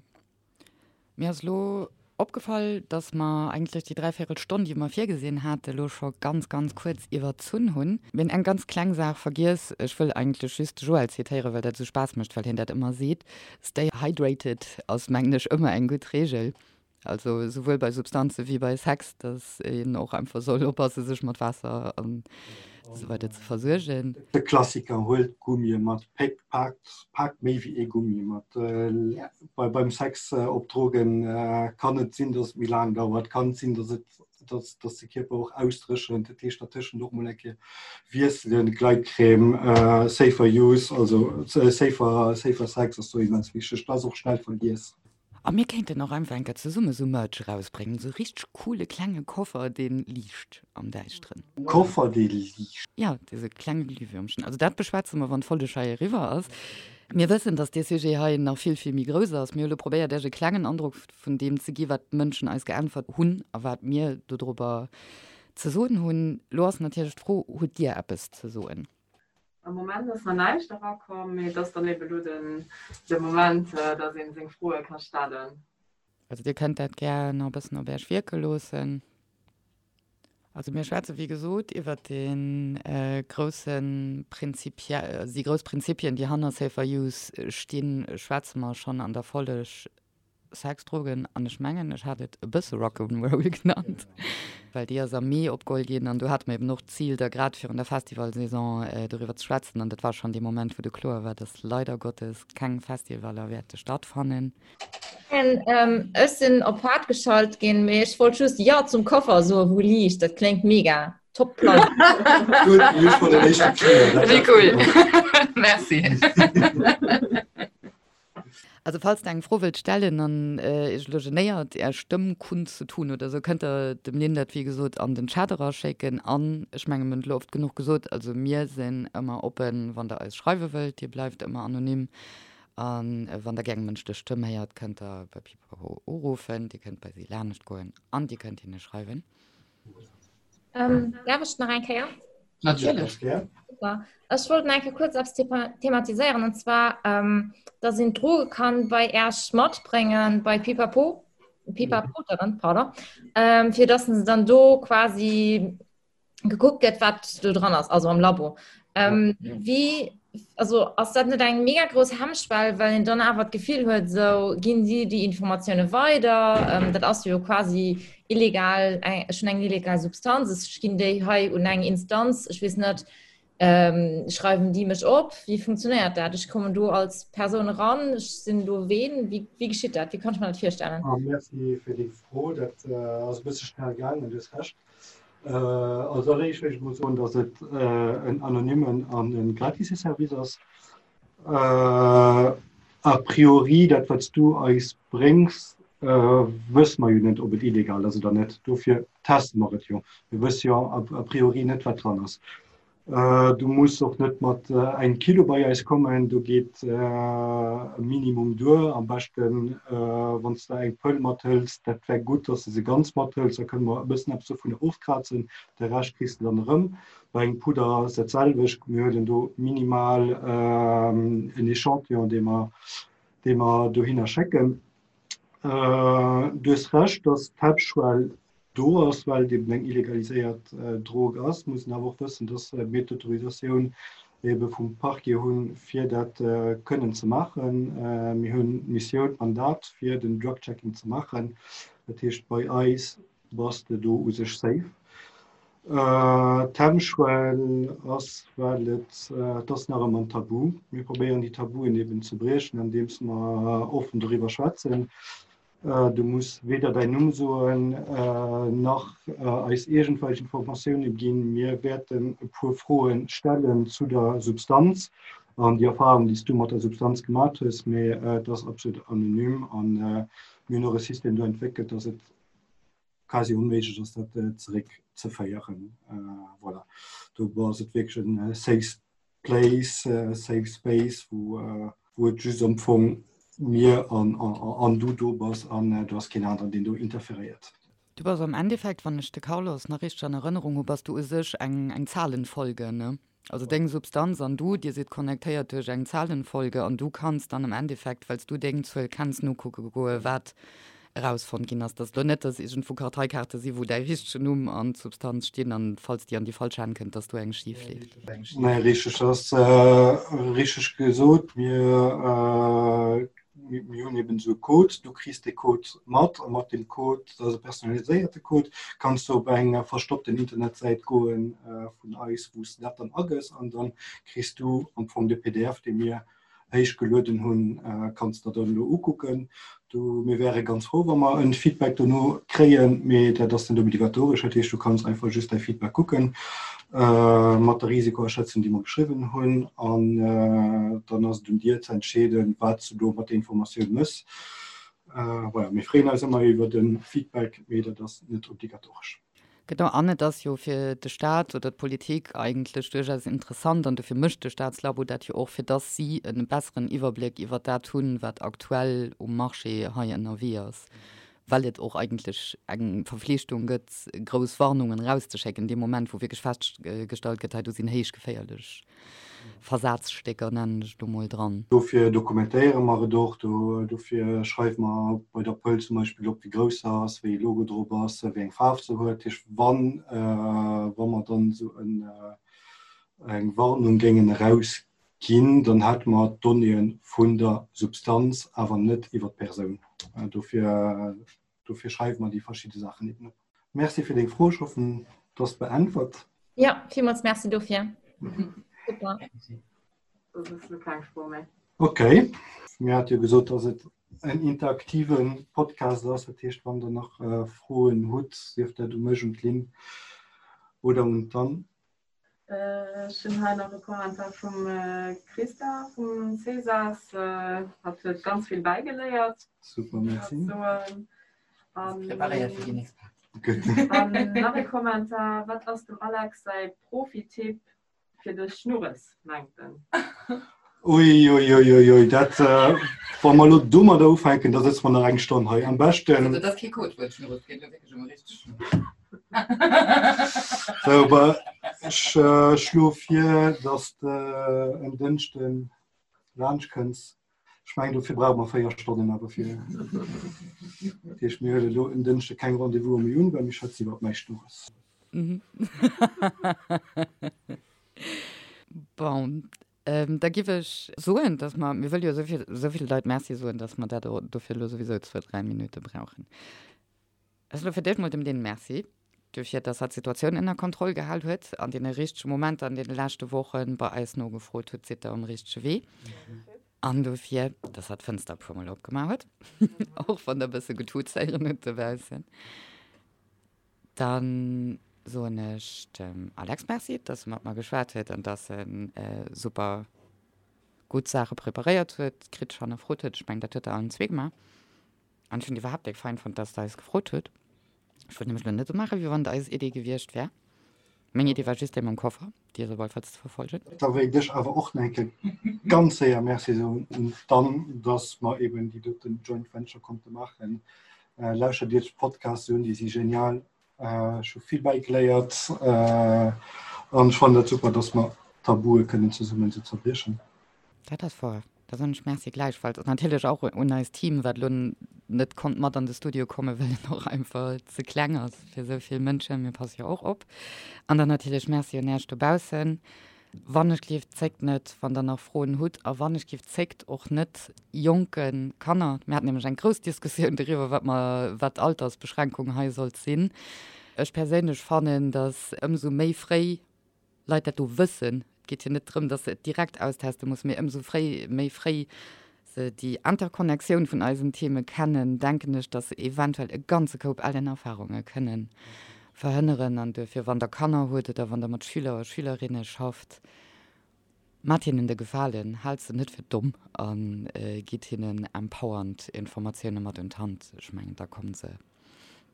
[SPEAKER 3] Mir ass elo opgefall, dass mer eigentlech déi dräivierel Stonn, déi mer virgesinn haten, elo scho ganz, ganz kuerz iwwerzunn hunn. Mir hunn eng ganz kleng Saach vergiess. Ech wëll eigentlech just de Joël zitéieren, well dat esou Spaass mécht, well hien dat ëmmer seet, Stay hydrated ass, mengen ech, ëmmer eng gutt Reegel. Also souwuel bei Substanze wéi bei Sex, dass een och einfach soll oppasse sech mat Waasser an esou weider ze versuergen.
[SPEAKER 4] De Klassiker, huelt Gummie mat, paakt paakt méi wéi ee Gummi mat. Bei beim Sex op Drogen kann et sinn, dass et méi laang dauert, kann et sinn, dass et dass dass de Kierper och ausdréchent, dat heescht dertëschent och mol eng Kéier wiesselen, Gleitcreme, safer use, also safer safer Sex ass do immens wichteg, dat ass och schnell vergiess.
[SPEAKER 3] A mir kéinten och einfach eng Kéier zesumme sou Merch erausbréngen, sou richteg coole klenge Koffer, dee liicht am Däischteren.
[SPEAKER 4] Koffer, dee liicht?
[SPEAKER 3] Jo, dee sou klenge Glühwürmchen. Also dat beschwätze mer, wann d'Folleg hei eriwwer ass. Mir wëssen, dass dee Sujet hei nach vill, vill méi grouss ass. Mir hu lo probéiert, Iech e klengen Androck vun deem ze gi, wat d'Mënschen eis geäntwert hunn a wat mir dodrobber ze soen hunn. Lo ass natierlech d'Fro, Hutt Dir eppes ze soen?
[SPEAKER 5] Am Moment ass nach näischt erakomm, mee et ass dann eben elo den de Moment, dass een seng Froe ka stellen.
[SPEAKER 3] Also dir kënnt dat gär nach e bëssen op Äech wierke loossen. Also mir schwätze wéi gesot iwwert dee grousse Prinzipie, déi grouss Prinzipien, déi hanner Safer Use stinn, schwätze mer schonn an der Folleg Sex, Drogen an ech mengen ech hat et e bësse Rock'n'Roll genannt, well déi ass am Mee opgeholl ginn an do hate mer eben och d'Zil da grad virun der Festivalsaison doriwwer ze schwätzen an dat war schonn dee Moment, wou du kloer war, dass leider Gottes keng Festivaler wäerte stattfannen.
[SPEAKER 6] Ech sinn op haart geschalt ginn, mee ech wollt just Jo zum Koffer soen, wou liicht. Dat kléngt mega. Top Plan.
[SPEAKER 3] Wéi cool. Merci. Also falls der eng Fro wëllt stellen an iech elo genéiert är Stëmm kundzutun oder sou, kënnt der dem Lynn dat wéi gesot an den Chat eraschécken. An ech menge mir hunn et elo oft genuch gesot, also mir sinn ëmmer oppen, wann der eis schreiwe wëllt, dir bleift ëmmer anonym. A wann der gär eng mënschlech Stëmm héiert, kënnt der bei Pipapo uruffen, dir kënnt bei si lanescht goen an dir kënnt hinne schreiwen.
[SPEAKER 6] Ähm, darf ech nach eng Kéier?
[SPEAKER 3] Natierlech.
[SPEAKER 6] Super. Ech wollt nach eng Kéier kurz eppes thematiséieren und zwar, ähm, dass een Droge kann bei Äerch matbréngen, bei Pipapo, Pipapo, mhm. pardon, ähm, fir dass se dann do quasi gekuckt gëtt, wat do dran ass, also am Labo. Ähm, ja. Wie also ass dat net eng mega grouss Hemmschwell, well een dann awer d'Gefill huet, sou ginn si déi Informatioune weider, ähm, dat ass jo quasi illegal eng, schon eng illegal Substanz, ech ginn déi hei un eng Instanz, ech weess net, ähm, schreiwen déi mech op, wéi funktionéiert dat? Ech kommen do als Persoun eran, ech sinn do ween, wéi, wéi geschitt dat? Wéi kann ech mer dat virstellen?
[SPEAKER 4] Ah, merci fir déi Fro, dat äh, ass e bësse schnell gaangen, du hues Recht. Als alleréischt wéilt ech mol soen, datt et en anonymen an e gratise Service ass. A priori, dat wat s du eis bréngs, wësse mer jo net, ob et illegal ass oder net. Dofir teste mer et jo. Mir wësse jo a priori net, wat dran ass. Du muss och net mat engem Kilo bei eis kommen, do geet e Minimum duer. Am beschten wann s de eng Pëll mathëls, dat wär gutt, dass de se ganz mathëls, da kënne mer e bëssen eppes dovunner ofkrazen, de Rescht kriss de dann erëm. Bei engem Pudder ass dat selwecht, mir huelen do minimal en Echantillon, dee mer, dee mer dohinner schécken. Du hues Recht, dass d'Hemmschwell do ass, well et eben eng illegaliséiert Drog ass, muss een awer och wëssen, dass mir d'Autorisatioun ebe vum Parquet hunn, fir dat kënnen ze maachen. Mir hunn d'Missioun, d'Mandat, fir den Drug-Checking ze maachen. Dat heescht, bei eis bass de do u sech safe. D'Hemmschwell ass, well et, et ass nach ëmmer en Tabu. Mir probéieren déi Tabuen eben ze briechen, andeems mer offen doriwwer schwätzen. Du muss weder däin Numm soen, nach eis iergendwelch Informatioune ginn. Mir wäerten e puer Froe stellen zu der Substanz an déi Erfarung, déi s du mat der Substanz gemat hues, mee et ass absolut anonym a mir hunn och e System do entwéckelt, dass et quasi onméiglech ass, dat zeréckzeféieren. Voilà, do ass et wierklech e safe Place, safe space, wou wou et just am Fong mir an an du do bass an do ass keen aneren, deen do interferéiert.
[SPEAKER 3] Du bass am Endeffekt, wann ech de Carlos nach richteg an Erënnerung hu, bass du u sech eng eng Zahlenfolge, ne? Also deng Substanz an du, dir sidd connectéiert duerch eng Zahlenfolge an du kanns dann am Endeffekt, well s du deng Zuel kenns, nokucke goe wat erausfonnt ginn ass. Dass elo net, dass iergendwou Karteikaarte si wou däi richtegen Numm an d'Substanz stinn an falls déi an déi falsch Hänn kënnt, dass do eng schif leeft.
[SPEAKER 4] Nee, richteg, dat ass richteg gesot. Mir mir hunn eben esou e Code, du kriss dee Code mat a mat deem Code, dat ass e personaliséierte Code, kanns du op eng verstoppten Internetsäit goen vun eis, wou s de dat dann agëss an dann kriss du am Fong de PDF, dee mir héich gelueden hunn, kanns der dann elo ukucken. Du, mir wäre ganz frou, wa mer en Feedback dono kréien, mee dat ass net obligatoresch. Dat heescht, du kanns einfach just däi Feedback kucken mat der Risikoaschätzung, déi mer geschriwwen hunn, an dann ass et un dir ze entscheeden, wat s du do mat der Informatioun mëss. Voilà, mir freeën eis ëmmer iwwer e Feedback, mee dat ass net obligatoresch.
[SPEAKER 3] Genau, an et ass jo fir de Staat oder d'Politik eigentlech duerchaus interessant, an dofir mécht de Staatslabo dat jo och, fir dass si e besseren Iwwerbléck iwwert dat hunn, wat aktuell um Marché hei ënnerwee ass. Well et och eigentlech eng Verflichtung gëtt, grouss Warnungen erauszeschécken, dee Moment, wou wierklech festgestallt gëtt, hei do sinn héich geféierlech Versazstécker, nennen ech et elo mol, dran.
[SPEAKER 4] Dofir dokumentéiere mer et och. Dofir schreiwe mer bei der Pëll zum Beispill op, wéi grouss se ass, wéi ee Logo drop ass, wéi eng Faarf se huet. Dat heescht, wann mer dann esou eng Warnung géingen erausginn, Ginn, dann hätte mer d'Donnéeë vun der Substanz, awer net iwwer d'Persoun. Dofir, dofir schreiwe mer déi verschidde Saachen eben op. Merci fir deng Fro. Ech hoffen, et ass beäntwert.
[SPEAKER 6] Jo, villmools Merci dofir. Super.
[SPEAKER 5] Dat ass elo keng Fro méi.
[SPEAKER 4] Okay. Mir hate jo gesot, dass et en interaktive Podcast ass. Dat heescht, wann Der nach Froen hutt, sief dat u mech, un d'Lynn oder un d'Anne.
[SPEAKER 5] Ech hunn hei nach e Kommentar vum Christa vum Cesas. Hatt huet ganz vill bäigeléiert.
[SPEAKER 4] Super, merci.
[SPEAKER 3] Preparéiert fir déi nächst Party.
[SPEAKER 5] An nach e Kommentar, Wat ass dem Alex säi Profi-Tipp fir de Schnurres, mengt en?
[SPEAKER 4] Ui, ui, ui, ui, ui, dat, wa mer elo domadder ufänken, da sëtze mer nach eng Stonn hei. Am beschten.
[SPEAKER 3] Also, dat ass kee Codewuert, Schnurres, et geet elo wierklech ëm e richtege Schnurres.
[SPEAKER 4] Sou, bah, ech schloe vir, dass de en Dënschde laanscht kënns. Ech mengen, dofir brauche mer 4 Stonnen awer fir. Dat heescht, mir huele elo en Dënschde keng Rendez-vouse méi un, well mir schwätzen iwwer mäi Schnurres.
[SPEAKER 3] Bon, Da giff ech soen, dass mer, mir wëlle jo esou vill, esou vill Leit Merci soen, dass mer dat dofir elo souwisou zwou, dräi Minutte brauchen. Ech soe fir d'éischt mol dem Lynn Merci dofir, dass hatt d'Situatioun ënner Kontroll gehal huet an deene richtege Momenter an deene leschte Woche bei eis nogefrot huet, Sidd Der um richtege Wee? An dofir, dass hatt d'Fënster e puermol opgemaach huet, och wann Der e bësse getutz héieren hutt dobaussen. Dann soen ech dem Alex Merci, dass e mat mer geschwat huet an dass e super gutt Saache preparéiert huet, kritesch hannerfrot huet. Ech mengen, dat huet Der allen zwee gemaach. An ech hunn et iwwerhaapt déck fein fonnt, dass Der eis gefrot hutt. Ech wollt nämlech elo net esou maachen, wéi wann et eis Idee gewiescht wär. Meng Idee war just déi mam Koffer, déi ass op alle Fall ze verfolgen.
[SPEAKER 4] Da wéilt ech awer och nach eng Kéier ganz séier Merci soen un d'Anne, dass mer eben déi doten Joint Venture konnte maachen. Lauschtert Iech d'Podcasts un, déi si genial. Ech hu vill bäigeléiert an ech fannen dat super, dass mer Tabue kënnen zesummen esou zerbriechen.
[SPEAKER 3] Dat ass wouer. Da soen ech Merci gläichfalls an natierlech och un eist Team, wat elo net konnt mat an de Studio kommen, well en och einfach ze kleng ass fir esou vill Mënschen. Mir passe jo och op. An dann natierlech Merci un Äech dobaussen. Wann ech gleeft, zéckt net, wann Der nach Froen hutt. A wann ech giff, zéckt och net, jonke Kanner, mir haten nämlech eng grouss Diskussioun doriwwer, wat mer, wat d'Altersbeschränkung hei sollt sinn. Ech perséinlech fannen, datt ëmsou méi fréi Leit dat do wëssen, et geet jo net drëm, datt se et direkt austeste mussen, mee ëmsou fréi, méi fréi se déi Interconnectioun vun eisen Theme kennen, denken ech, datt se eventuell e ganze Koup ellen Erfahrunge kënnen verhënneren. An duerfir, wann Der Kanner hutt oder wann Der mat Schüler a Schülerinne schafft, maacht hinnen de Gefalen, haalt se net fir domm a gitt hinnen empowernd Informatioune mat un d'Hand. Ech mengen, da komme se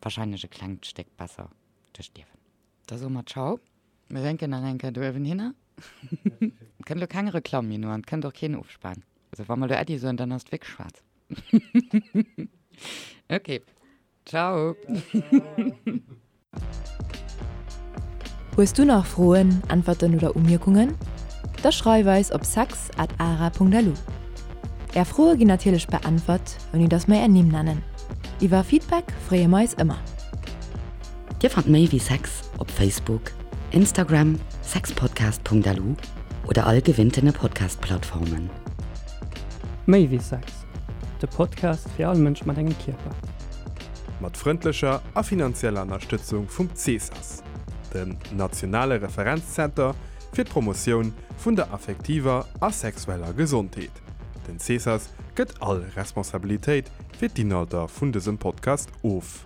[SPEAKER 3] wahrscheinlech e klengt Stéck besser duerch d'Liewen. Da soe mer Ciao. Mir wénken nach eng Kéier do uewen hinner. Et kënnt elo keng Reklamm méi no an et kënnt och keen Ofspan. Also wa mer elo Äddi soen, dann ass et wierklech schwaarz. Ok, Ciao.
[SPEAKER 1] Hues du nach Froen, Äntwerten oder Umierkungen? Da schreif eis op sex at ara.lu. Är Froe ginn natierlech beäntwert, ouni dass mer är Nimm nennen. Iwwer Feedback freeë mer eis ëmmer.
[SPEAKER 3] Dir fannt méi wéi Sex op Facebook, Instagram, sexpodcast.lu oder all gewinntene Podcast-Plattformen.
[SPEAKER 7] Méi wéi Sex, de Podcast fir all Mënsch mat engem Kierper.
[SPEAKER 2] Mat frëndlecher a finanzieller Ënnerstëtzung vum CESAS, dem nationale Referenzzenter fir d'Promotioun vun der affektiver a sexueller Gesondheet. Den CESAS gëtt all Responsabilitéit fir d'Inhalter vun dësem Podcast of.